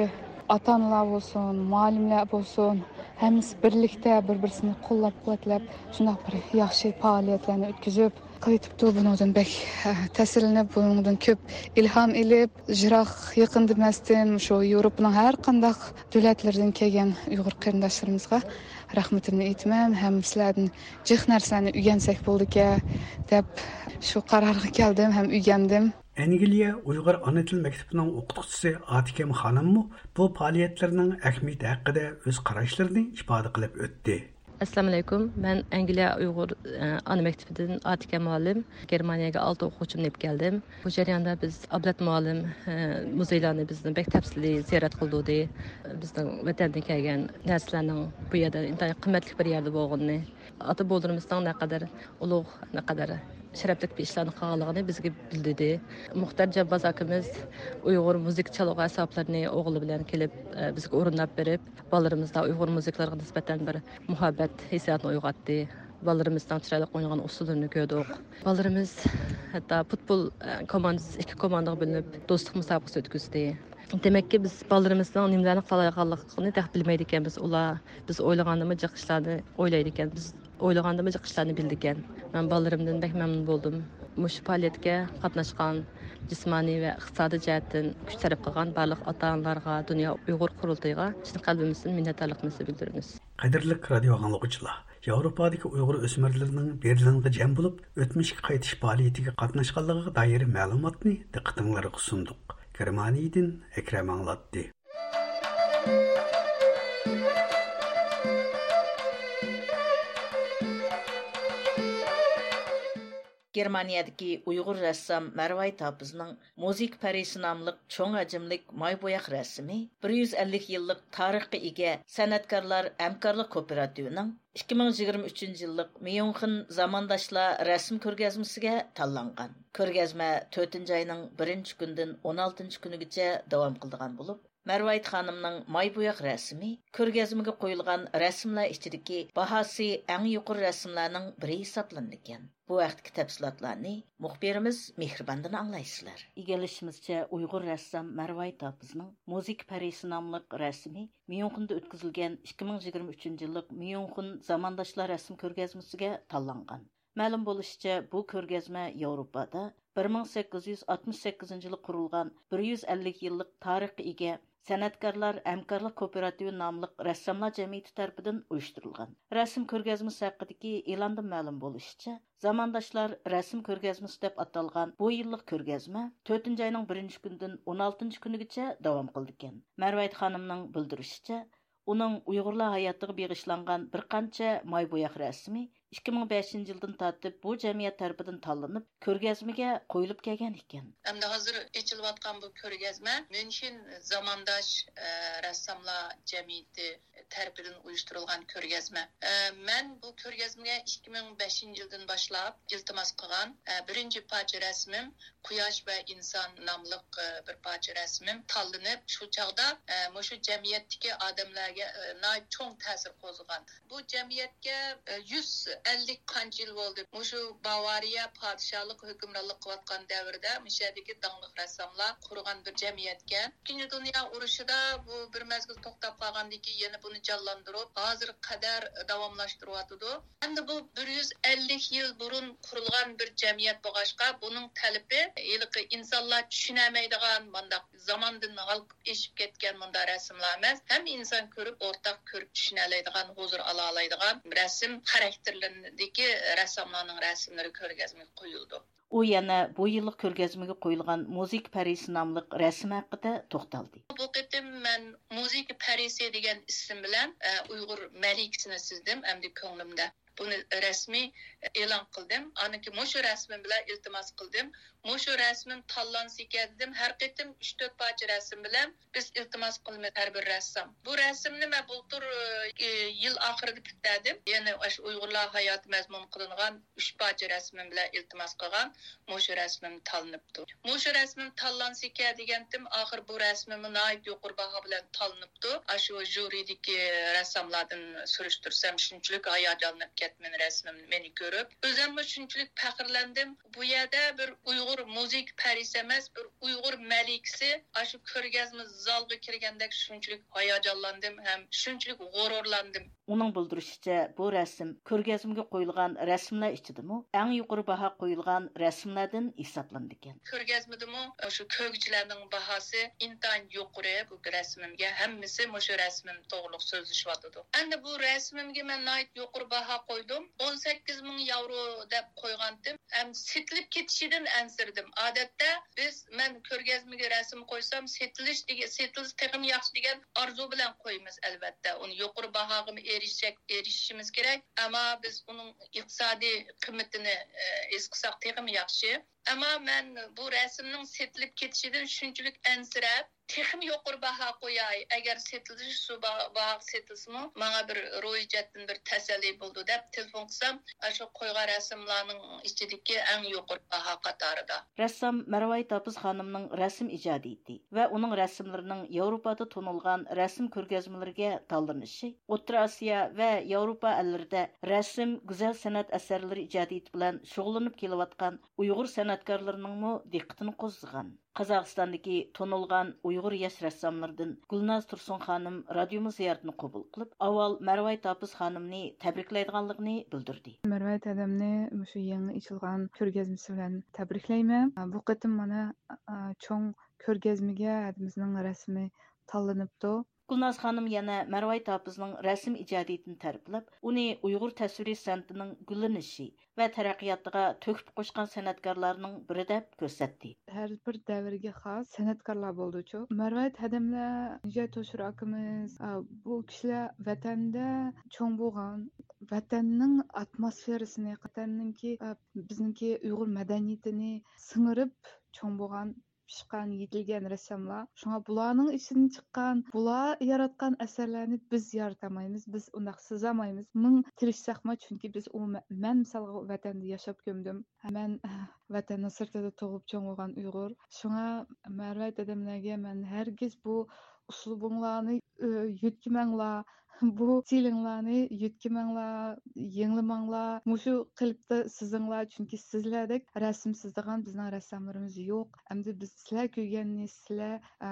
ئاتا-ئانىلار بولسۇن، مۇئەللىملەر بولسۇن، ھەممىسى بىرلىكتە بىر-بىرسىنى قوللاپ-قۇۋۋەتلەپ، شۇنداق بىر ياخشى پائالىيەتلەرنى ئۆتكۈزۈپ، قىلىۋېتىپتۇ. بۇنىڭدىن بەك، ھە، تەسىرلىنىپ، بۇنىڭدىن كۆپ ئىلھام ئېلىپ، يىراق يېقىن دېمەستىن، مۇشۇ ياۋروپىنىڭ ھەر قانداق دۆلەتلىرىدىن كەلگەن ئۇيغۇر قېرىنداشلىرىمىزغا رەھمىتىمنى ئېيتىمەن ھەم سىلەردىن جىق نەرسىلەرنى ئۆگەنسەك بولىدىكەن، دەپ شۇ قارارغا كەلدىم ھەم ئۆگەندىم. ئەنگلىيە ئۇيغۇر ئانا تىل مەكتىپىنىڭ ئوقۇتقۇچىسى ئاتىكەم خانىممۇ بۇ پائالىيەتلەرنىڭ ئەھمىيىتى ھەققىدە ئۆز قاراشلىرىنى ئىپادە قىلىپ ئۆتتى. ئەسسالامۇئەلەيكۇم. مەن ئەنگلىيە ئۇيغۇر، ئە، ئانا مەكتىپىدىن ئاتىكەم مۇئەللىم. گېرمانىيەگە ئالتە ئوقۇغۇچىمنى ئېلىپ كەلدىم. بۇ جەرياندا بىز ئابلەت مۇئەللىم، ئە، مۇزېيلارنى بىزنى بەك تەپسىلىي زىيارەت قىلدۇردى. بىزنىڭ ۋەتەندىن كەلگەن نەرسىلەرنىڭ بۇ يەردە ئىنتايىن قىممەتلىك بىر يەردە بولغىنىنى، ئاتا بوۋىلىرىمىزنىڭ نەقەدەر ئۇلۇغ، نەقەدەر شەرەپلىك بىر ئىشلارنى قىلغانلىقىنى بىزگە بىلدۈردى. مۇختەر جامباز ئاكىمىز ئۇيغۇر مۇزىكا چالغۇ ئەسۋابلىرىنى ئوغلى بىلەن كېلىپ، ئە، بىزگە ئورۇنداپ بېرىپ، بالىلىرىمىزدا ئۇيغۇر مۇزىكىلىرىغا نىسبەتەن بىر مۇھەببەت ھېسسىياتىنى ئويغاتتى. بالىلىرىمىزنىڭ چىرايلىق ئوينىغان ئۇسسۇللىرىنى كۆردۇق. بالىلىرىمىز ھەتتا پۇتبول، ئە، كوماندىسى، ئىككى كوماندىغا بۆلۈنۈپ، دوستلۇق مۇسابىقىسى ئۆتكۈزدى. دېمەككى، بىز بالىلىرىمىزنىڭ نېمىلەرنى قىلالايدىغانلىقىنى تېخى بىلمەيدىكەنمىز. ئۇلار بىز ئويلىغاندىنمۇ جىق ئىشلارنى ئويلايدىكەن، بىز ئويلىغاندىنمۇ جىق ئىشلارنى بىلىدىكەن. مەن بالىلىرىمدىن بەك مەمنۇن بولدۇم. مۇشۇ پائالىيەتكە قاتناشقان، جىسمانىي ۋە ئىقتىسادىي جەھەتتىن كۈچ سەرپ قىلغان بارلىق ئاتا-ئانىلارغا، دۇنيا ئۇيغۇر قۇرۇلتىيىغا چىن قەلبىمىزدىن مىننەتدارلىقىمىزنى بىلدۈرىمىز. قەدىرلىك رادىئو ئاڭلىغۇچىلار، ياۋروپادىكى ئۇيغۇر ئۆسمۈرلىرىنىڭ بېرلىنغا جەم بولۇپ، ئۆتمۈشكە قايتىش پائالىيىتىگە قاتناشقانلىقىغا دائىر مەلۇماتنى دىققىتىڭلارغا سۇندۇق. گېرمانىيەدىن ئەكرەم ئاڭلاتتى. گېرمانىيەدىكى ئۇيغۇر رەسسام مەرۋايىت ھاپىزنىڭ مۇزىكا پەرىسى ناملىق چوڭ ھەجىملىك ماي بوياق رەسىمى بىر يۈز ئەللىك يىللىق تارىخقا ئىگە سەنئەتكارلار ھەمكارلىق كوپىراتىۋىنىڭ ئىككى مىڭ يىگىرمە ئۈچىنچى يىللىق ميۇنخېن زامانداشلار رەسىم كۆرگەزمىسىگە تاللانغان. كۆرگەزمە تۆتىنچى ئاينىڭ بىرىنچى كۈنىدىن ئون ئالتىنچى كۈنىگىچە داۋام قىلىدىغان بولۇپ، مەرۋايىت خانىمنىڭ ماي بوياق رەسىمى كۆرگەزمىگە قويۇلغان رەسىملەر ئىچىدىكى باھاسى ئەڭ يۇقىرى رەسىملەرنىڭ بىرى ھېسابلىنىدىكەن. بۇ ھەقتىكى تەپسىلاتلارنى مۇخبىرىمىز مېھرىباندىن ئاڭلايسىلەر. ئىگىلىشىمىزچە، ئۇيغۇر رەسسام مەرۋايىت ھاپىزنىڭ مۇزىكا پەرىسى ناملىق رەسىمى ميۇنخېندا ئۆتكۈزۈلگەن ئىككى مىڭ يىگىرمە ئۈچىنچى يىللىق ميۇنخېن زامانداشلار رەسىم كۆرگەزمىسىگە تاللانغان. مەلۇم بولۇشىچە، بۇ كۆرگەزمە ياۋروپادا بىر مىڭ سەككىز يۈز ئاتمىش سەككىزىنچى يىلى قۇرۇلغان بىر يۈز ئەللىك يىللىق تارىخقا ئىگە سەنئەتكارلار ھەمكارلىق كوپىراتىۋى ناملىق رەسساملار جەمئىيىتى تەرىپىدىن ئۇيۇشتۇرۇلغان. رەسىم كۆرگەزمىسى ھەققىدىكى ئېلاندىن مەلۇم بولۇشىچە، زامانداشلار رەسىم كۆرگەزمىسى دەپ ئاتالغان بۇ يىللىق كۆرگەزمە تۆتىنچى ئاينىڭ بىرىنچى كۈنىدىن ئون ئالتىنچى كۈنىگىچە داۋام قىلىدىكەن. مەرۋايىت خانىمنىڭ بىلدۈرۈشىچە، ئۇنىڭ ئۇيغۇرلار ھاياتىغا بېغىشلانغان بىر قانچە ماي بوياق رەسىمى ئىككى مىڭ بەشىنچى يىلدىن تارتىپ بۇ جەمئىيەت تەرىپىدىن تاللىنىپ، كۆرگەزمىگە قويۇلۇپ كەلگەن ئىكەن. ئەمدى ھازىر ئېچىلىۋاتقان بۇ كۆرگەزمە ميۇنخېن زامانداش، ئە، رەسساملار جەمئىيىتى تەرىپىدىن ئۇيۇشتۇرۇلغان كۆرگەزمە. ئە، مەن بۇ كۆرگەزمىگە ئىككى مىڭ بەشىنچى يىلدىن باشلاپ ئىلتىماس قىلغان، ئە، بىرىنچى پارچە رەسىمىم قۇياش ۋە ئىنسان ناملىق، ئە، بىر پارچە رەسىمىم تاللىنىپ، شۇ چاغدا، ئە، مۇشۇ جەمئىيەتتىكى ئادەملەرگە، ئە، ناھايىتى چوڭ تەسىر قوزغىغان. بۇ جەمئىيەتكە، ئە، يۈز ئەللىك قانچە يىل بولدى. مۇشۇ باۋارىيە پادىشاھلىق ھۆكۈمرانلىق قىلىۋاتقان دەۋردە مۇشۇ يەردىكى داڭلىق رەسساملار قۇرغان بىر جەمئىيەتكەن. ئىككىنچى دۇنيا ئۇرۇشىدا بۇ بىر مەزگىل توختاپ قالغاندىن كېيىن يەنە بۇنى جانلاندۇرۇپ، ھازىرغا قەدەر داۋاملاشتۇرۇۋاتىدۇ. ئەمدى بۇ بىر يۈز ئەللىك يىل بۇرۇن قۇرۇلغان بىر جەمئىيەت بولغاچقا، بۇنىڭ تەلىپى ھېلىقى ئىنسانلار چۈشىنەلمەيدىغان، مانداق زاماندىن ھالقىپ ئېشىپ كەتكەن مۇنداق رەسىملەر ئەمەس، ھەممە ئىنسان كۆرۈپ، ئورتاق كۆرۈپ چۈشىنەلەيدىغان، ھۇزۇر ئالالايدىغان رەسىم خاراكتېرلىرىدىكى رەسساملارنىڭ رەسىملىرى كۆرگەزمىگە قويۇلىدۇ. ئۇ يەنە بۇ يىللىق كۆرگەزمىگە قويۇلغان مۇزىكا پەرىسى ناملىق رەسىم ھەققىدە توختالدى. بۇ قېتىم مەن مۇزىكا پەرىسى دېگەن ئىسىم بىلەن، ئە، ئۇيغۇر مەلىكىسىنى سىزدىم ئەمدى كۆڭلۈمدە. بۇنى رەسمىي ئېلان قىلدىم. ئاندىن كېيىن مۇشۇ رەسىمىم بىلەن ئىلتىماس قىلدىم. مۇشۇ رەسىمىم تاللانسىكەن دېدىم. ھەر قېتىم ئۈچ تۆت پارچە رەسىم بىلەن بىز ئىلتىماس قىلىمىز ھەر بىر رەسسام. بۇ رەسىمنى مەن بۇلتۇر، ئى، يىل ئاخىرىدا پۈتتۈردۈم. يەنە ئاشۇ ئۇيغۇرلار ھاياتى مەزمۇن قىلىنغان ئۈچ پارچە رەسىمىم بىلەن ئىلتىماس قىلغان مۇشۇ رەسىمىم تاللىنىپتۇ. مۇشۇ رەسىمىم تاللانسىكەن دېگەنتىم، ئاخىر بۇ رەسىمىممۇ ناھايىتى يۇقىرى باھا بىلەن تاللىنىپتۇ. ئاشۇ ژۇرىدىكى رەسساملاردىن سۈرۈشتۈرسەم، شۇنچىلىك ھاياجانلىنىپ كەتتىم رەسىمىم مېنى كۆرۈپ. ئۆزۈممۇ شۇنچىلىك پەخىرلەندىم. بۇ يەردە بىر ئۇيغۇر مۇزىكا پەرىسى ئەمەس، بىر ئۇيغۇر مەلىكىسى ئاشۇ كۆرگەزمە زالغا كىرگەندەك شۇنچىلىك ھاياجانلاندىم ھەم شۇنچىلىك غۇرۇرلاندىم. ئۇنىڭ بىلدۈرۈشىچە، بۇ رەسىم كۆرگەزمىگە قويۇلغان رەسىملەر ئىچىدىمۇ ئەڭ يۇقىرى باھا قويۇلغان رەسىملەردىن ھېسابلىنىدىكەن. كۆرگەزمىدىمۇ شۇ كۆرگۈچىلەرنىڭ باھاسى ئىنتايىن يۇقىرى بۇ رەسىمىمگە. ھەممىسى مۇشۇ رەسىمىم توغرۇلۇق سۆزلىشىۋاتىدۇ. ئەمدى بۇ رەسىمىمگە مەن ناھايىتى يۇقىرى باھا قويدۇم. ئون سەككىز مىڭ ياۋرو دەپ قويغانتىم. ئەمدى سېتىلىپ كېتىشىدىن ئەنسىرىدىم. ئادەتتە بىز، مەن كۆرگەزمىگە رەسىم قويسام، سېتىلىش دېگەن، سېتىلسا تېخىمۇ ياخشى دېگەن ئارزۇ بىلەن قويىمىز، ئەلۋەتتە. ئۇنى يۇقىرى باھاغىمۇ ئېرىشەك، ئېرىشىشىمىز كېرەك. ئەمما بىز ئۇنىڭ ئىقتىسادىي قىممىتىنى، ئە، ھېس قىلساق تېخىمۇ ياخشى. ئەمما مەن بۇ رەسىمنىڭ سېتىلىپ كېتىشىدىن شۇنچىلىك ئەنسىرەپ، تېخىمۇ يۇقىرى باھا قوياي، ئەگەر سېتىلىش شۇ با-، باھاغا سېتىلسىمۇ، ماڭا بىر روھىي جەھەتتىن بىر تەسەللى بولىدۇ، دەپ تېلېفون قىلسام، ئاشۇ قويغان رەسىملارنىڭ ئىچىدىكى ئەڭ يۇقىرى باھا قاتارىدا. رەسسام مەرۋايىت ھاپىز خانىمنىڭ رەسىم ئىجادىيىتى ۋە ئۇنىڭ رەسىملىرىنىڭ ياۋروپادا تونۇلغان رەسىم كۆرگەزمىلىرىگە تاللىنىشى ئوتتۇرا ئاسىيا ۋە ياۋروپا ئەللىرىدە رەسىم، گۈزەل سەنئەت ئەسەرلىرى ئىجادىيىتى بىلەن شۇغۇللىنىپ كېلىۋاتقان ئۇيغۇر سەنئەتكارلىرىنىڭمۇ دىققىتىنى قوزغىغان. قازاقىستاندىكى تونۇلغان ئۇيغۇر ياش رەسساملىرىدىن گۈلناز تۇرسۇن خانىم رادىيومىز زىيارىتىنى قوبۇل قىلىپ، ئاۋۋال مەرۋايىت ھاپىز خانىمنى تەبرىكلەيدىغانلىقىنى بىلدۈردى. مەرۋايىت ھەدەمنى مۇشۇ يېڭى ئېچىلغان كۆرگەزمىسى بىلەن تەبرىكلەيمەن. بۇ قېتىم مانا، ئا، چوڭ كۆرگەزمىگە ھەدىمىزنىڭ رەسىمى تاللىنىپتۇ. گۈلناز خانىم يەنە مەرۋايىت ھاپىزنىڭ رەسىم ئىجادىيىتىنى تەرىپلەپ، ئۇنى ئۇيغۇر تەسۋىرىي سەنئىتىنىڭ گۈللىنىشى ۋە تەرەققىياتىغا تۆھپە قوشقان سەنئەتكارلارنىڭ بىرى دەپ كۆرسەتتى. ھەر بىر دەۋرگە خاس سەنئەتكارلار بولدىچۇ. مەرۋايىت ھەدەملەر، نىجات ھوشۇر ئاكىمىز، ئا، بۇ كىشىلەر ۋەتەندە چوڭ بولغان، ۋەتەننىڭ ئاتموسفېرىسىنى، ۋەتەننىڭكى، ئا، بىزنىڭكى ئۇيغۇر مەدەنىيىتىنى سىڭىرىپ چوڭ بولغان، پىشقان، يېتىلگەن رەسساملار. شۇڭا بۇلارنىڭ ئىچىدىن چىققان، بۇلار ياراتقان ئەسەرلەرنى بىز يارىتالمايمىز، بىز ئۇنداق سىزالمايمىز. مىڭ تىرىشساقمۇ، چۈنكى بىز ئۇ مە-، مەن مىسالغا ۋەتەندە ياشاپ كۆمدۈم. مەن ۋەتەننىڭ سىرتىدا تۇغۇپ چوڭ بولغان ئۇيغۇر. شۇڭا مەرۋايىت ھەدەملەرگە مەن ھەرگىز بۇ ئۇسلۇبۇڭلارنى، ئۆ، يۆتكىمەڭلار، بۇ ئىستىلىڭلارنى يۆتكىمەڭلار، يېڭىلىماڭلار، مۇشۇ قېلىپتا سىزىڭلار، چۈنكى سىزلەردەك رەسىم سىزىدىغان بىزنىڭ رەسساملىرىمىز يوق. ئەمدى بىز سىلەر كۆرگەننى، سىلەر، ئە،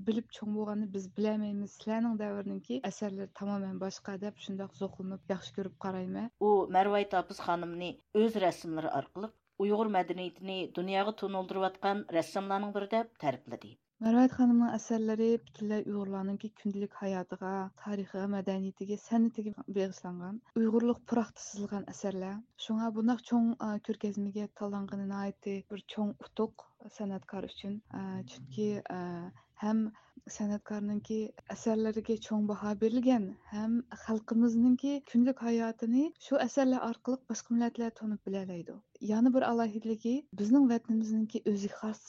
بىلىپ چوڭ بولغاننى بىز بىلەلمەيمىز. سىلەرنىڭ دەۋرىنىڭكى ئەسەرلىرى تامامەن باشقا، دەپ شۇنداق زوقلىنىپ ياخشى كۆرۈپ قارايمەن. ئۇ مەرۋايىت ھاپىز خانىمنى ئۆز رەسىملىرى ئارقىلىق ئۇيغۇر مەدەنىيىتىنى دۇنياغا تونۇلدۇرۇۋاتقان رەسساملارنىڭ بىرى دەپ تەرىپلىدى. مەرۋايىت خانىمنىڭ ئەسەرلىرى پۈتۈنلەي ئۇيغۇرلارنىڭكى كۈندىلىك ھاياتىغا، تارىخىغا، مەدەنىيىتىگە، سەنئىتىگە بېغىشلانغان، ئۇيغۇرلۇق پۇراقتا سىزىلغان ئەسەرلەر. شۇڭا بۇنداق چوڭ، ئا، كۆرگەزمىگە تاللانغىنى ناھايىتى بىر چوڭ ئۇتۇق سەنئەتكار ئۈچۈن. ئا، چۈنكى، ئا، ھەم سەنئەتكارنىڭكى ئەسەرلىرىگە چوڭ باھا بېرىلگەن، ھەم خەلقىمىزنىڭكى كۈندىلىك ھاياتىنى شۇ ئەسەرلەر ئارقىلىق باشقا مىللەتلەر تونۇپ بىلەلەيدۇ. يەنە بىر ئالاھىدىلىكى، بىزنىڭ ۋەتىنىمىزنىڭكى ئۆزىگە خاس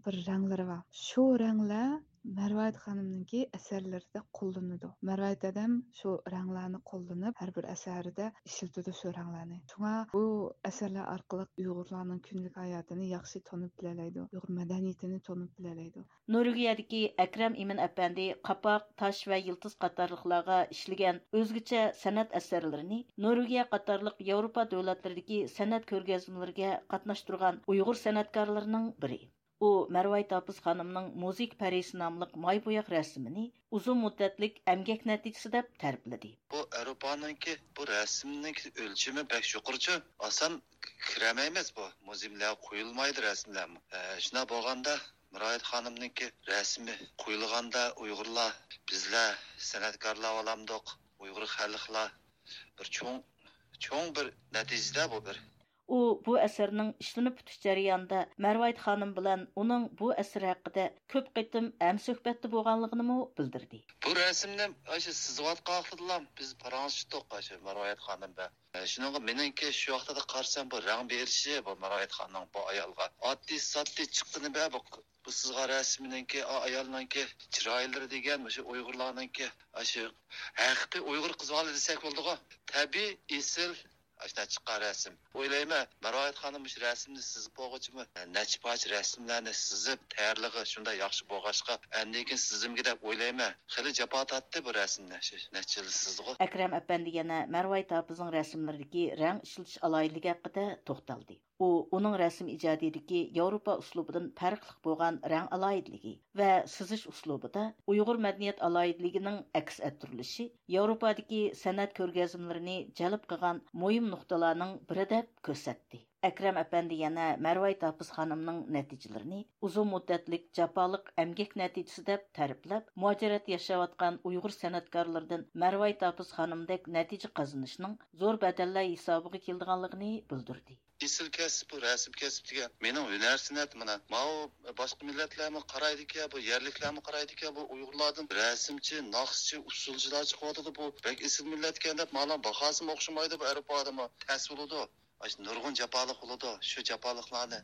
بىر رەڭلىرى بار. شۇ رەڭلەر مەرۋايىت خانىمنىڭكى ئەسەرلىرىدە قوللىنىدۇ. مەرۋايىت ھەدەم شۇ رەڭلەرنى قوللىنىپ، ھەر بىر ئەسەرىدە ئىشلىتىدۇ شۇ رەڭلەرنى. شۇڭا بۇ ئەسەرلەر ئارقىلىق ئۇيغۇرلارنىڭ كۈندىلىك ھاياتىنى ياخشى تونۇپ بىلەلەيدۇ، ئۇيغۇر مەدەنىيىتىنى تونۇپ بىلەلەيدۇ. نورۋېگىيەدىكى ئەكرەم ئىمىن ئەپەندى قاپاق، تاش ۋە يىلتىز قاتارلىقلارغا ئىشلىگەن ئۆزگىچە سەنئەت ئەسەرلىرىنى نورۋېگىيە قاتارلىق ياۋروپا دۆلەتلىرىدىكى سەنئەت كۆرگەزمىلىرىگە قاتناشتۇرغان ئۇيغۇر سەنئەتكارلىرىنىڭ بىرى. ئۇ مەرۋايىت ھاپىز خانىمنىڭ مۇزىكا پەرىسى ناملىق ماي بوياق رەسىمىنى ئۇزۇن مۇددەتلىك ئەمگەك نەتىجىسى دەپ تەرىپلىدى. بۇ ئاۋروپانىڭكى بۇ رەسىمنىڭ ئۆلچىمى بەك يۇقىرىچۇ، ئاسان كىرەلمەيمىز، بۇ مۇزېيلارغا قويۇلمايدۇ رەسىملەرمۇ. ئە، شۇنداق بولغاندا مەرۋايىت خانىمنىڭكى رەسىمى قويۇلغاندا ئۇيغۇرلار، بىزلەر سەنئەتكارلار بولامدۇق، ئۇيغۇر خەلقلەر بىر چوڭ، چوڭ بىر نەتىجىدە بۇ بىر. ئۇ بۇ ئەسەرنىڭ ئىشلىنىپ پۈتۈش جەريانىدا مەرۋايىت خانىم بىلەن ئۇنىڭ بۇ ئەسىرى ھەققىدە كۆپ قېتىم ھەمسۆھبەتتە بولغانلىقىنىمۇ بىلدۈردى. بۇ رەسىمنى ئاشۇ سىزىۋاتقان ۋاقتىدىلا بىز پاراڭلىشىپ تۇق، ئاشۇ مەرۋايىت خانىم بىلەن. ئە، شۇنىڭغا مېنىڭكى شۇ ۋاقتىدا قارىسام، بۇ رەڭ بېرىشى، بۇ مەرۋايىت خانىمنىڭ بۇ ئايالغا ئاددىي ساددىي چىققىنى بە، بۇ، بۇ سىزغان رەسىمنىڭكى، ئا-، ئايالنىڭكى چىرايلىرى دېگەن، مۇشۇ ئۇيغۇرلارنىڭكى، ئاشۇ ھەقىقىي ئۇيغۇر قىز بالا دېسەك بولىدىغۇ. تەبىئىي، ئېسىل، ئاشۇنداق چىققان رەسىم. ئويلايمەن، مەرۋايىت خانىم مۇشۇ رەسىمنى سىزىپ بولغۇچىمۇ، نەچچە پارچە رەسىملەرنى سىزىپ تەييارلىقى شۇنداق ياخشى بولغاچقا، ئاندىن كېيىن سىزىمگە دەپ ئويلايمەن. خېلى جاپا تارتتى بۇ رەسىمنى، شۇ نەچچە يىل سىزدىغۇ. ئەكرەم ئەپەندى يەنە مەرۋايىت ھاپىزنىڭ رەسىملىرىدىكى رەڭ ئىشلىتىش ئالاھىدىلىكى ھەققىدە توختالدى. ئۇ ئۇنىڭ رەسىم ئىجادىيىتىدىكى ياۋروپا ئۇسلۇبىدىن پەرقلىق بولغان رەڭ ئالاھىدىلىكى ۋە سىزىش ئۇسلۇبىدا ئۇيغۇر مەدەنىيەت ئالاھىدىلىكىنىڭ ئەكس ئەتتۈرۈلۈشى ياۋروپادىكى سەنئەت كۆرگەزمىلىرىنى جەلپ قىلغان مۇھىم نۇقتىلارنىڭ بىرى دەپ كۆرسەتتى. ئەكرەم ئەپەندى يەنە مەرۋايىت ھاپىز خانىمنىڭ نەتىجىلىرىنى ئۇزۇن مۇددەتلىك جاپالىق ئەمگەك نەتىجىسى دەپ تەرىپلەپ، مۇھاجىرەتتە ياشاۋاتقان ئۇيغۇر سەنئەتكارلىرىدىن مەرۋايىت ھاپىز خانىمدەك نەتىجە قازىنىشنىڭ زور بەدەللەر ھېسابىغا كېلىدىغانلىقىنى بىلدۈردى. ئېسىل كەسىپ بۇ، رەسىم كەسىپ دېگەن مېنىڭ ھۈنەر سەنئەت مانا. ماۋۇ باشقا مىللەتلەرمۇ قارايدىكەن، بۇ يەرلىكلەرمۇ قارايدىكەن، بۇ ئۇيغۇرلاردىن رەسىمچى، ناخشىچى، ئۇسسۇلچىلار چىقىۋاتىدۇ، بۇ بەك ئېسىل مىللەتكەن دەپ، مانا باھاسىمۇ ئوخشىمايدۇ، بۇ ئەرپ ئادىمى تەس بولىدۇ. ئاشۇ نۇرغۇن جاپالىق بولىدۇ، شۇ جاپالىقلارنى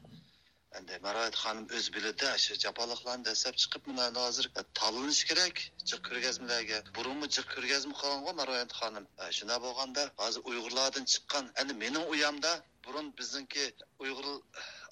ئەندى مەرۋايىت خانىم ئۆزى بىلىدۇ، شۇ جاپالىقلارنى دەسسەپ چىقىپ، مانا ھازىر تاللىنىش كېرەك جىق كۆرگەزمىلەرگە. بۇرۇنمۇ جىق كۆرگەزمە قىلغانغۇ مەرۋايىت خانىم. شۇنداق بولغاندا ھازىر ئۇيغۇرلاردىن چىققان، ئەنە مېنىڭ ئۇيامدا بۇرۇن بىزنىڭكى ئۇيغۇر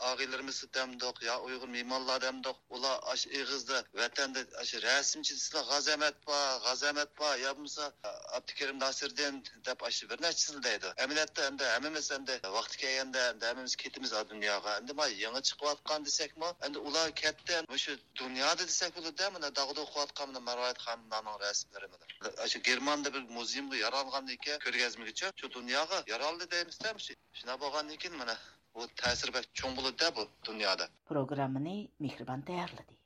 ئاغىنىلىرىمىز دەمدۇق يا ئۇيغۇر مېھمانلار دەمدۇق، ئۇلار ئاشۇ ئېغىزدا ۋەتەندە ئاشۇ رەسىمچى دېسىلا غازى ئەمەت بار، غازى ئەمەت بار، يا بولمىسا ئابدۇكېرىم ناسىردىن دەپ ئاشۇ بىر نەچچىسىنى دەيدۇ. ئەمەلىيەتتە ئەمدى ھەممىمىز ئەمدى ۋاقتى كەلگەندە ئەمدى ھەممىمىز كېتىمىز ئا دۇنياغا. ئەمدى ما يېڭى چىقىۋاتقان دېسەكمۇ، ئەمدى ئۇلار كەتتى. مۇشۇ دۇنيادا دېسەك بولىدۇ، مانا داغدۇغا قىلىۋاتقان مانا مەرۋايىت خانىملارنىڭ رەسىملىرى مانا. ئاشۇ گېرماندا بىر مۇزېيۇمغا يارالغاندىن كېيىن كۆرگەزمىگىچە شۇ دۇنياغا يارالدى دەيمىزدە، مۇشۇ. شۇنداق بولغاندىن كېيىن مانا بۇ تەسىرى بەك چوڭ بولىدۇ بۇ دۇنيادا. پروگراممىنى مېھرىبان تەييارلىدى.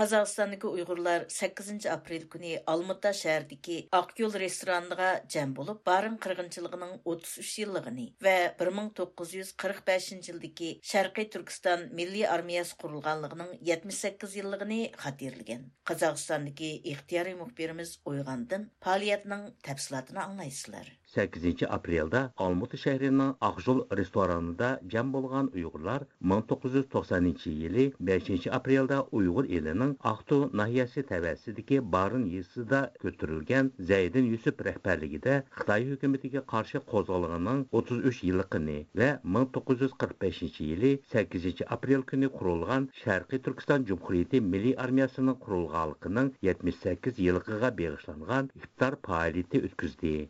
قازاقىستاندىكى ئۇيغۇرلار سەككىزىنچى ئاپرېل كۈنى ئالمۇتا شەھىرىدىكى ئاق يول رېستورانىغا جەم بولۇپ، بارىن قىرغىنچىلىقىنىڭ ئوتتۇز ئۈچ يىللىقىنى ۋە بىر مىڭ توققۇز يۈز قىرىق بەشىنچى يىلدىكى شەرقىي تۈركىستان مىللىي ئارمىيەسى قۇرۇلغانلىقىنىڭ يەتمىش سەككىز يىللىقىنى خاتىرىلىگەن. قازاقىستاندىكى ئىختىيارىي مۇخبىرىمىز ئويغاندىن پائالىيەتنىڭ تەپسىلاتىنى ئاڭلايسىلەر. سەككىزىنچى ئاپرېلدا ئالمۇتا شەھىرىنىڭ ئاقجول رېستورانىدا جەم بولغان ئۇيغۇرلار مىڭ توققۇز يۈز توقسەنىنچى يىلى بەشىنچى ئاپرېلدا ئۇيغۇر ئېلىنىڭ ئاقتۇ ناھىيەسى تەۋەسىدىكى بارىن يېزىسىدا كۆتۈرۈلگەن زەيدىن يۈسۈپ رەھبەرلىكىدە خىتاي ھۆكۈمىتىگە قارشى قوزغىلىڭىنىڭ ئوتتۇز ئۈچ يىللىقىنى ۋە مىڭ توققۇز يۈز قىرىق بەشىنچى يىلى سەككىزىنچى ئاپرېل كۈنى قۇرۇلغان شەرقىي تۈركىستان جۇمھۇرىيىتى مىللىي ئارمىيەسىنىڭ قۇرۇلغانلىقىنىڭ يەتمىش سەككىز يىللىقىغا بېغىشلانغان ئىپتار پائالىيىتى ئۆتكۈزدى.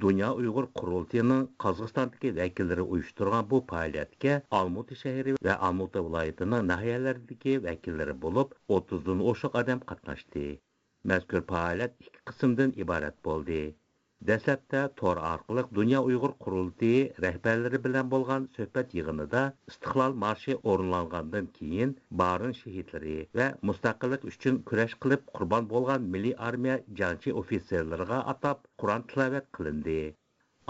دۇنيا ئۇيغۇر قۇرۇلتىيىنىڭ قازاقىستاندىكى ۋەكىللىرى ئۇيۇشتۇرغان بۇ پائالىيەتكە ئالمۇتا شەھىرى ۋە ئالمۇتا ۋىلايىتىنىڭ ناھىيەلىرىدىكى ۋەكىللىرى بولۇپ، ئوتتۇزدىن ئوشۇق ئادەم قاتناشتى. مەزكۇر پائالىيەت ئىككى قىسىمدىن ئىبارەت بولدى. دەسلەپتە تور ئارقىلىق دۇنيا ئۇيغۇر قۇرۇلتىيى رەھبەرلىرى بىلەن بولغان سۆھبەت يىغىنىدا ئىستىقلال مارشى ئورۇنلانغاندىن كېيىن، بارىن شېھىتلىرى ۋە مۇستەقىللىق ئۈچۈن كۈرەش قىلىپ قۇربان بولغان مىللىي ئارمىيە جەڭچى ئوفىتسېرلىرىغا ئاتاپ قۇرئان تىلاۋەت قىلىندى.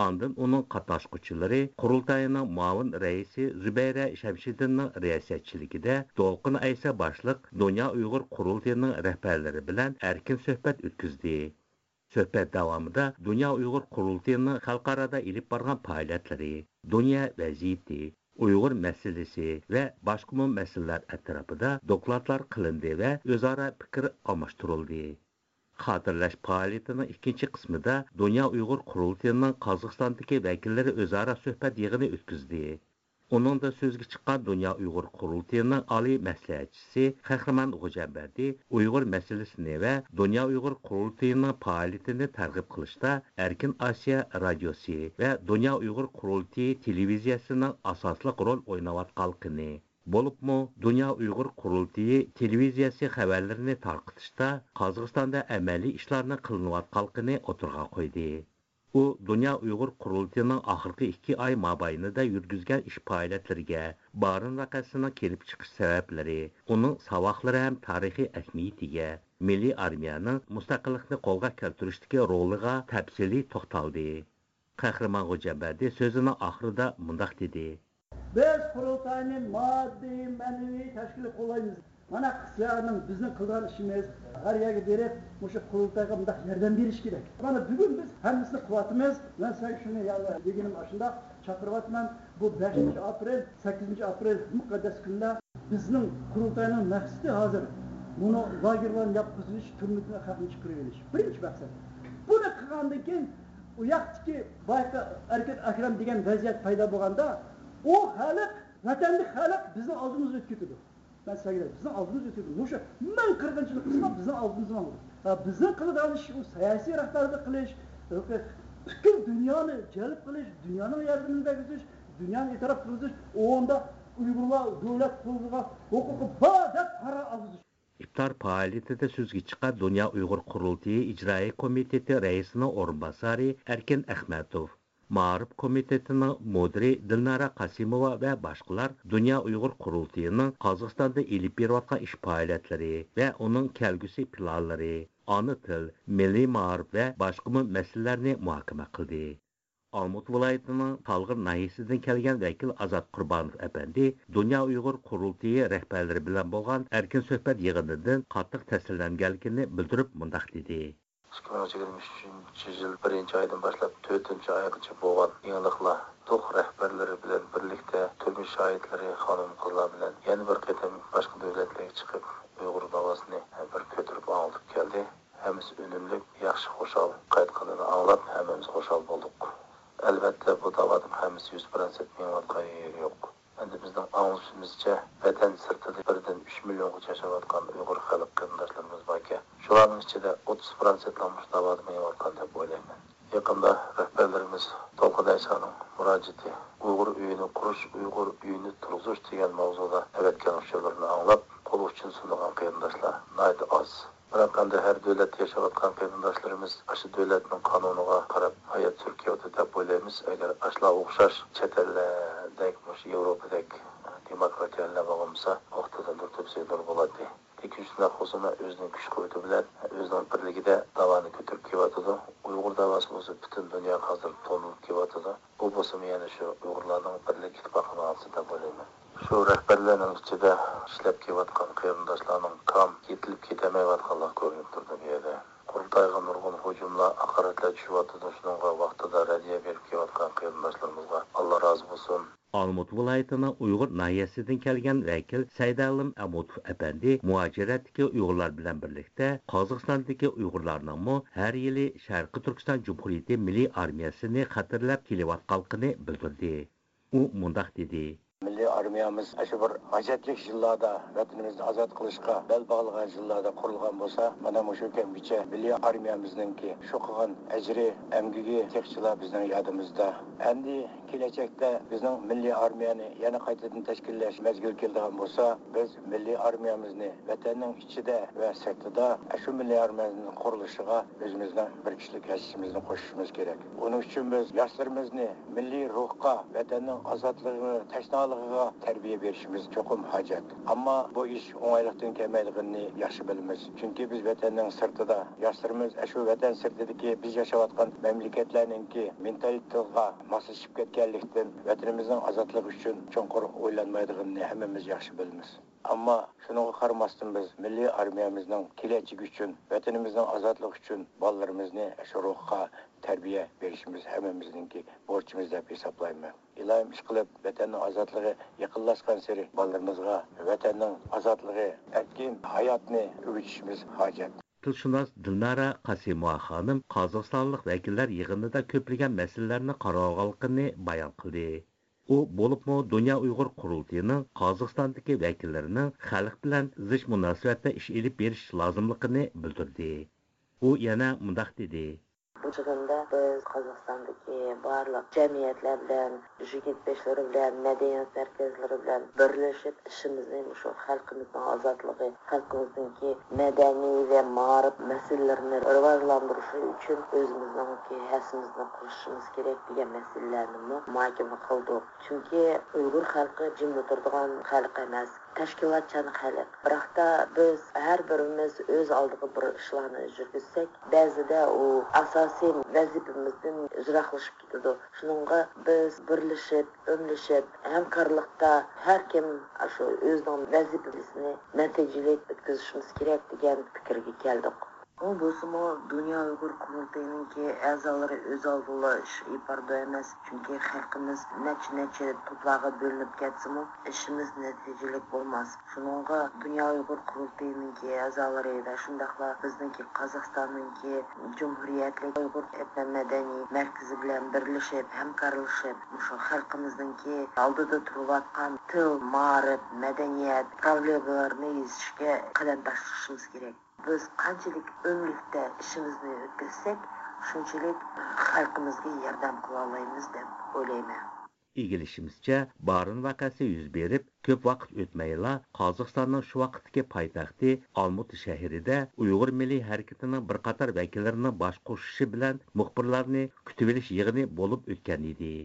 ئاندىن ئۇنىڭ قاتناشقۇچىلىرى قۇرۇلتاينىڭ مۇئاۋىن رەئىسى زۇبەيرە شەمشىدىننىڭ رىياسەتچىلىكىدە دولقۇن ئەيسا باشلىق دۇنيا ئۇيغۇر قۇرۇلتىيىنىڭ رەھبەرلىرى بىلەن ئەركىن سۆھبەت ئۆتكۈزدى. سۆھبەت داۋامىدا دۇنيا ئۇيغۇر قۇرۇلتىيىنىڭ خەلقئارادا ئېلىپ بارغان پائالىيەتلىرى، دۇنيا ۋەزىيىتى، ئۇيغۇر مەسىلىسى ۋە باشقىمۇ مەسىلىلەر ئەتراپىدا دوكلاتلار قىلىندى ۋە ئۆزئارا پىكىر ئالماشتۇرۇلدى. خاتىرىلەش پائالىيىتىنىڭ ئىككىنچى قىسمىدا دۇنيا ئۇيغۇر قۇرۇلتىيىنىڭ قازاقىستاندىكى ۋەكىللىرى ئۆزئارا سۆھبەت يىغىنى ئۆتكۈزدى. ئۇنىڭدا سۆزگە چىققان دۇنيا ئۇيغۇر قۇرۇلتىيىنىڭ ئالىي مەسلىھەتچىسى قەھرىمان خوجامبەردى ئۇيغۇر مەسىلىسىنى ۋە دۇنيا ئۇيغۇر قۇرۇلتىيىنىڭ پائالىيىتىنى تەرغىب قىلىشتا ئەركىن ئاسىيا رادىيوسى ۋە دۇنيا ئۇيغۇر قۇرۇلتىيى تېلېۋىزىيەسىنىڭ ئاساسلىق رول ئويناۋاتقانلىقىنى، بولۇپمۇ دۇنيا ئۇيغۇر قۇرۇلتىيى تېلېۋىزىيەسى خەۋەرلىرىنى تارقىتىشتا قازاقىستاندا ئەمەلىي ئىشلارنىڭ قىلىنىۋاتقانلىقىنى ئوتتۇرىغا قويدى. ئۇ دۇنيا ئۇيغۇر قۇرۇلتىيىنىڭ ئاخىرقى ئىككى ئاي مابەينىدە يۈرگۈزگەن ئىش پائالىيەتلىرىگە، بارىن ۋەقەسىنىڭ كېلىپ چىقىش سەۋەبلىرى، ئۇنىڭ ساۋاقلىرى ھەم تارىخىي ئەھمىيىتىگە، مىللىي ئارمىيەنىڭ مۇستەقىللىقنى قولغا كەلتۈرۈشتىكى رولىغا تەپسىلىي توختالدى. قەھرىمان خوجامبەردى سۆزىنىڭ ئاخىرىدا مۇنداق دېدى. بىز قۇرۇلتاينى ماددىي، مەنىۋى تەشكىل قوللايمىز. مانا، سىلەرنىڭ، بىزنىڭ قىلىدىغان ئىشىمىز، ھەر يەرگە بېرىپ، مۇشۇ قۇرۇلتايغا مۇنداق ياردەم بېرىش كېرەك. مانا، بۈگۈن بىز ھەممىسىنى قىلىۋاتىمىز. مەن سىلەرگە شۇنى يەنە دېگىنىم ئاشۇنداق، چاقىرىۋاتىمەن. بۇ بەشىنچى ئاپرېل، سەككىزىنچى ئاپرېل مۇقەددەس كۈنلەر. بىزنىڭ قۇرۇلتاينىڭ مەقسىتى ھازىر مۇنۇ لاگېرلارنى ياپقۇزۇۋېتىش، تۈرمىدىن خەقنى چىقىرىۋېلىش. بىرىنچى مەقسەت. بۇنى قىلغاندىن كېيىن، ئۇ ياقتىكى بايىقى ئەركىن ئەكرەم دېگەن ۋەزىيەت پەيدا بولغاندا، ئۇ خەلق، ۋەتەندىكى خەلق بىزنىڭ ئالدىمىزدا ئۆتۈپ كېتىدۇ. مەن سىلەرگە، بىزنىڭ ئالدىمىزدا ئۆتۈپ كېتىدۇ. مۇشۇ مىڭ قىرغىنچىلىق قىلسا، بىزنىڭ ئالدىمىزدا ماڭىدۇ. ھە، بىزنىڭ قىلىدىغان ئىش ئۇ سىياسىي رەھبەرلىك قىلىش، پۈتكۈل دۇنيانى جەلپ قىلىش، دۇنيانىڭ ياردىمىنى بەرگۈزۈش، دۇنيانى ئېتىراپ قىلغۇزۇش، ئۇندا ئۇيغۇرلار دۆلەت قۇرۇلىشىغا ھوقۇقى بار دەپ قارار ئالغۇزۇش. ئىپتار پائالىيىتىدە سۆزگە چىققان دۇنيا ئۇيغۇر قۇرۇلتىيى ئىجرائىي كومىتېتى رەئىسىنىڭ ئورۇنباسارى ئەركىن ئەخمەتوف، مائارىپ كومىتېتىنىڭ مۇدىرى دىلنارا قاسىموۋا ۋە باشقىلار دۇنيا ئۇيغۇر قۇرۇلتىيىنىڭ قازاقىستاندا ئېلىپ بېرىۋاتقان ئىش پائالىيەتلىرى ۋە ئۇنىڭ كەلگۈسى پىلانلىرى، ئانا تىل، مىللىي مائارىپ ۋە باشقىمۇ مەسىلىلەرنى مۇھاكىمە قىلدى. ئالمۇتا ۋىلايىتىنىڭ تالغىر ناھىيەسىدىن كەلگەن ۋەكىل ئازات قۇربانوف ئەپەندى دۇنيا ئۇيغۇر قۇرۇلتىيى رەھبەرلىرى بىلەن بولغان ئەركىن سۆھبەت يىغىنىدىن قاتتىق تەسىرلەنگەنلىكىنى بىلدۈرۈپ مۇنداق دېدى. ئىككى مىڭ يىگىرمە ئۈچىنچى يىل بىرىنچى ئايدىن باشلاپ تۆتىنچى ئايغىچە بولغان يېڭىلىقلار، دوخ رەھبەرلىرى بىلەن بىرلىكتە تۈرمە شاھىتلىرى خانىم-قىزلار بىلەن يەنە بىر قېتىم باشقا دۆلەتلەرگە چىقىپ، ئۇيغۇر داۋاسىنى بىر كۆتۈرۈپ ئاڭلىتىپ كەلدى. ھەممىسى ئۈنۈملۈك، ياخشى، خۇشال قايتقىنىنى ئاڭلاپ، ھەممىمىز خۇشال بولدۇق. ئەلۋەتتە، بۇ داۋانىڭ ھەممىسى يۈز پىروتسەنت مېڭىۋاتقان يېرى يوق. ئەمدى بىزنىڭ ئاڭلىشىمىزچە، ۋەتەن سىرتىدا بىردىن ئۈچ مىليونغىچە ياشاۋاتقان ئۇيغۇر خەلق قېرىنداشلىرىمىز باركەن، شۇلارنىڭ ئىچىدە ئوتتۇز پىروتسەنتلا مۇشۇ داۋادا مېڭىۋاتقان دەپ ئويلايمەن. يېقىندا رەھبەرلىرىمىز تولقۇن ئەيسانىڭ مۇراجىئىتى، «ئۇيغۇر ئۆيىنى قۇرۇش، ئۇيغۇر ئۆيىنى تۇرغۇزۇش» دېگەن ماۋزۇدا ئەۋەتكەن ئۇچۇرلىرىنى ئاڭلاپ، قول ئۇچىنى سۇنىدىغان قېرىنداشلار ناھايىتى ئاز. بىراق ئەمدى ھەر دۆلەتتە ياشاۋاتقان قېرىنداشلىرىمىز ئاشۇ دۆلەتنىڭ قانۇنىغا قاراپ ھايات سۈرۈپ كېلىۋاتىدۇ دەپ ئويلايمىز. ئەگەر ئاشۇلار ئوخشاش چەت ئەللەردەك، مۇشۇ ياۋروپادەك دېموكراتىيە ئەللەر بولغان بولسا، ۋاقتىدا نۇر تۆپىسى نۇر بولاتتى. لېكىن شۇنداق بولسىمۇ ئۆزىنىڭ كۈچ-قۇۋۋىتى بىلەن، ئۆزىنىڭ بىرلىكىدە داۋانى كۆتۈرۈپ كېلىۋاتىدۇ. ئۇيغۇر داۋاسى بولسا پۈتۈن دۇنياغا ھازىر تونۇلۇپ كېلىۋاتىدۇ. بۇ بولسىمۇ يەنە شۇ ئۇيغۇرلارنىڭ بىرلىك ئىتتىپاقىنىڭ ئالدىسى دەپ ئويلايمەن. شۇ رەھبەرلەرنىڭ ئىچىدە ئىشلەپ كېلىۋاتقان قېرىنداشلارنىڭ تام يېتىلىپ كېتەلمەيۋاتقانلىقى كۆرۈنۈپ تۇرىدۇ بۇ يەردە. قۇرۇلتايغا نۇرغۇن ھۇجۇملار، ھاقارەتلەر چۈشۈۋاتىدۇ، شۇنىڭغا ۋاقتىدا رەددىيە بېرىپ كېلىۋاتقان قېرىنداشلىرىمىزغا ئاللا رازى بولسۇن. ئالمۇتا ۋىلايىتىنىڭ ئۇيغۇر ناھىيەسىدىن كەلگەن ۋەكىل سەيدالىم ئەمۇتوف ئەپەندى مۇھاجىرەتتىكى ئۇيغۇرلار بىلەن بىرلىكتە قازاقىستاندىكى ئۇيغۇرلارنىڭمۇ ھەر يىلى شەرقىي تۈركىستان جۇمھۇرىيىتى مىللىي ئارمىيەسىنى خاتىرىلەپ كېلىۋاتقانلىقىنى بىلدۈردى. ئۇ مۇنداق دېدى. مىللىي ئارمىيەمىز ئاشۇ بىر ھاجەتلىك يىللاردا، ۋەتىنىمىزنى ئازاد قىلىشقا بەل باغلىغان يىللاردا قۇرۇلغان بولسا، مانا مۇشۇ كەمگىچە مىللىي ئارمىيەمىزنىڭكى شۇ قىلغان ئەجرى، ئەمگىكى تېخىچىلا بىزنىڭ يادىمىزدا. ئەمدى كېلەچەكتە بىزنىڭ مىللىي ئارمىيەنى يەنە قايتىدىن تەشكىللەش مەزگىلى كېلىدىغان بولسا، بىز مىللىي ئارمىيەمىزنى ۋەتەننىڭ ئىچىدە ۋە سىرتىدا ئاشۇ مىللىي ئارمىيەنىڭ قۇرۇلۇشىغا ئۆزىمىزنىڭ بىر كىشىلىك ھەسسىمىزنى قوشۇشىمىز كېرەك. ئۇنىڭ ئۈچۈن بىز ياشلىرىمىزنى مىللىي روھقا، ۋەتەننىڭ ئازادلىقىغا تەشنالىقىغا تەربىيە بېرىشىمىز چوقۇم ھاجەت. ئەمما بۇ ئىش ئوڭايلىقتىن كەلمەيدىغىنىنى ياخشى بىلىمىز. چۈنكى بىز ۋەتەننىڭ سىرتىدا، ياشلىرىمىز ئاشۇ ۋەتەن سىرتىدىكى بىز ياشاۋاتقان مەملىكەتلەرنىڭكى مېنتالىتېتىغا ماسلىشىپ كەتكەنلىكتىن، ۋەتىنىمىزنىڭ ئازادلىقى ئۈچۈن چوڭقۇر ئويلانمايدىغىنىنى ھەممىمىز ياخشى بىلىمىز. ئەمما شۇنىڭغا قارىماستىن، بىز مىللىي ئارمىيەمىزنىڭ كېلەچىكى ئۈچۈن، ۋەتىنىمىزنىڭ ئازادلىقى ئۈچۈن بالىلىرىمىزنى شۇ روھقا تەربىيە بېرىشىمىز ھەممىمىزنىڭكى بورچىمىز دەپ ھېسابلايمەن. ئىلاھىم ئىشقىلىپ، ۋەتەننىڭ ئازادلىقى يېقىنلاشقانسېرى بالىلىرىمىزغا ۋەتەننىڭ ئازادلىقى، ئەركىن ھاياتنى ئۆگىتىشىمىز ھاجەت. تىلشۇناس دىلنارا قاسىموۋا خانىم قازاقىستانلىق ۋەكىللەر يىغىنىدا كۆپلىگەن مەسىلىلەرنى قارىۋالغانلىقىنى بايان قىلدى. ئۇ بولۇپمۇ دۇنيا ئۇيغۇر قۇرۇلتىيىنىڭ قازاقىستاندىكى ۋەكىللىرىنىڭ خەلق بىلەن زىچ مۇناسىۋەتتە ئىش ئېلىپ بېرىش لازىملىقىنى بىلدۈردى. ئۇ يەنە مۇنداق دېدى. بۇ جىغىندا بىز قازاقىستاندىكى بارلىق جەمئىيەتلەر بىلەن، يىگىت بېشلىرى بىلەن، مەدەنىيەت مەركەزلىرى بىلەن بىرلىشىپ، ئىشىمىزنى مۇشۇ خەلقىمىزنىڭ ئازادلىقى، خەلقىمىزنىڭكى مەدەنىي ۋە مائارىپ مەسىلىلىرىنى راۋاجلاندۇرۇشى ئۈچۈن ئۆزىمىزنىڭكى ھەسسىمىزنى قوشۇشىمىز كېرەك دېگەن مەسىلىلەرنىمۇ مۇھاكىمە قىلدۇق. چۈنكى ئۇيغۇر خەلقى جىملا تۇرىدىغان خەلق ئەمەس، تەشكىلاتچان خەلق. بىراقتا بىز ھەر بىرىمىز ئۆز ئالدىغا بىر ئىشلارنى يۈرگۈزسەك، بەزىدە ئۇ ئاساسىي ۋەزىپىمىزدىن يىراقلىشىپ كېتىدۇ. شۇنىڭغا بىز بىرلىشىپ، ئۆملىشىپ، ھەمكارلىقتا ھەر كىم شۇ ئۆزىنىڭ ۋەزىپىسىنى نەتىجىلىك ئۆتكۈزۈشىمىز كېرەك دېگەن پىكىرگە كەلدۇق. ئۇ بولسىمۇ دۇنيا ئۇيغۇر قۇرۇلتىيىنىڭكى ئەزالىرى ئۆز ئالدىغا ئىش ئېلىپ بارىدۇ ئەمەس، چۈنكى خەلقىمىز نەچچە نەچچە توپلارغا بۆلۈنۈپ كەتسىمۇ، ئىشىمىز نەتىجىلىك بولماس. شۇنىڭغا دۇنيا ئۇيغۇر قۇرۇلتىيىنىڭكى ئەزالىرى ۋە شۇنداقلا بىزنىڭكى قازاقىستاننىڭكى جۇمھۇرىيەتلىك ئۇيغۇر ئېتنو مەدەنىي مەركىزى بىلەن بىرلىشىپ، ھەمكارلىشىپ، مۇشۇ خەلقىمىزنىڭكى ئالدىدا تۇرۇۋاتقان تىل، مائارىپ، مەدەنىيەت پروبلېمىلىرىنى يېزىشكە قەدەم تاشلىشىمىز كېرەك. بىز قانچىلىك ئۆملۈكتە ئىشىمىزنى ئۆتكۈزسەك، شۇنچىلىك خەلقىمىزگە ياردەم قىلالايمىز دەپ ئويلايمەن. ئىگىلىشىمىزچە، بارىن ۋەقەسى يۈز بېرىپ، كۆپ ۋاقىت ئۆتمەيلا، قازاقىستاننىڭ شۇ ۋاقىتتىكى پايتەختى ئالمۇتا شەھىرىدە ئۇيغۇر مىللىي ھەرىكىتىنىڭ بىر قاتار ۋەكىللىرىنىڭ باش قوشۇشى بىلەن مۇخبىرلارنى كۈتۈۋېلىش يىغىنى بولۇپ ئۆتكەن ئىدى.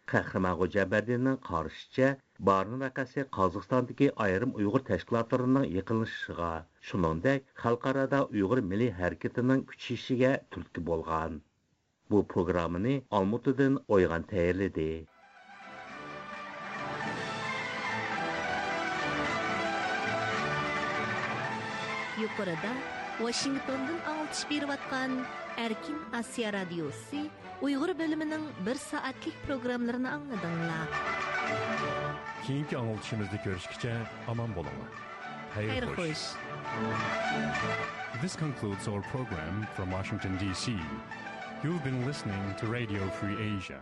قەھرىمان خوجامبەردىننىڭ قارىشىچە، بارىن ۋەقەسى قازاقىستاندىكى ئايرىم ئۇيغۇر تەشكىلاتلىرىنىڭ يېقىنلىشىشىغا، شۇنىڭدەك خەلقئارادا ئۇيغۇر مىللىي ھەرىكىتىنىڭ كۈچىيىشىگە تۈرتكە بولغان. بۇ پروگراممىنى ئالمۇتىدىن ئويغان تەييارلىدى. يۇقىرىدا ۋاشىنگتوندىن ئاڭلىتىش بېرىۋاتقان ئەركىن ئاسىيا رادىيوسى ئۇيغۇر بۆلۈمىنىڭ بىر سائەتلىك پروگراممىلىرىنى ئاڭلىدىڭلار. كېيىنكى ئاڭلىتىشىمىزدا كۆرۈشكىچە ئامان بولۇڭلار. خەير خوش. This concludes our program from Washington, D C. You've been listening to Radio Free Asia.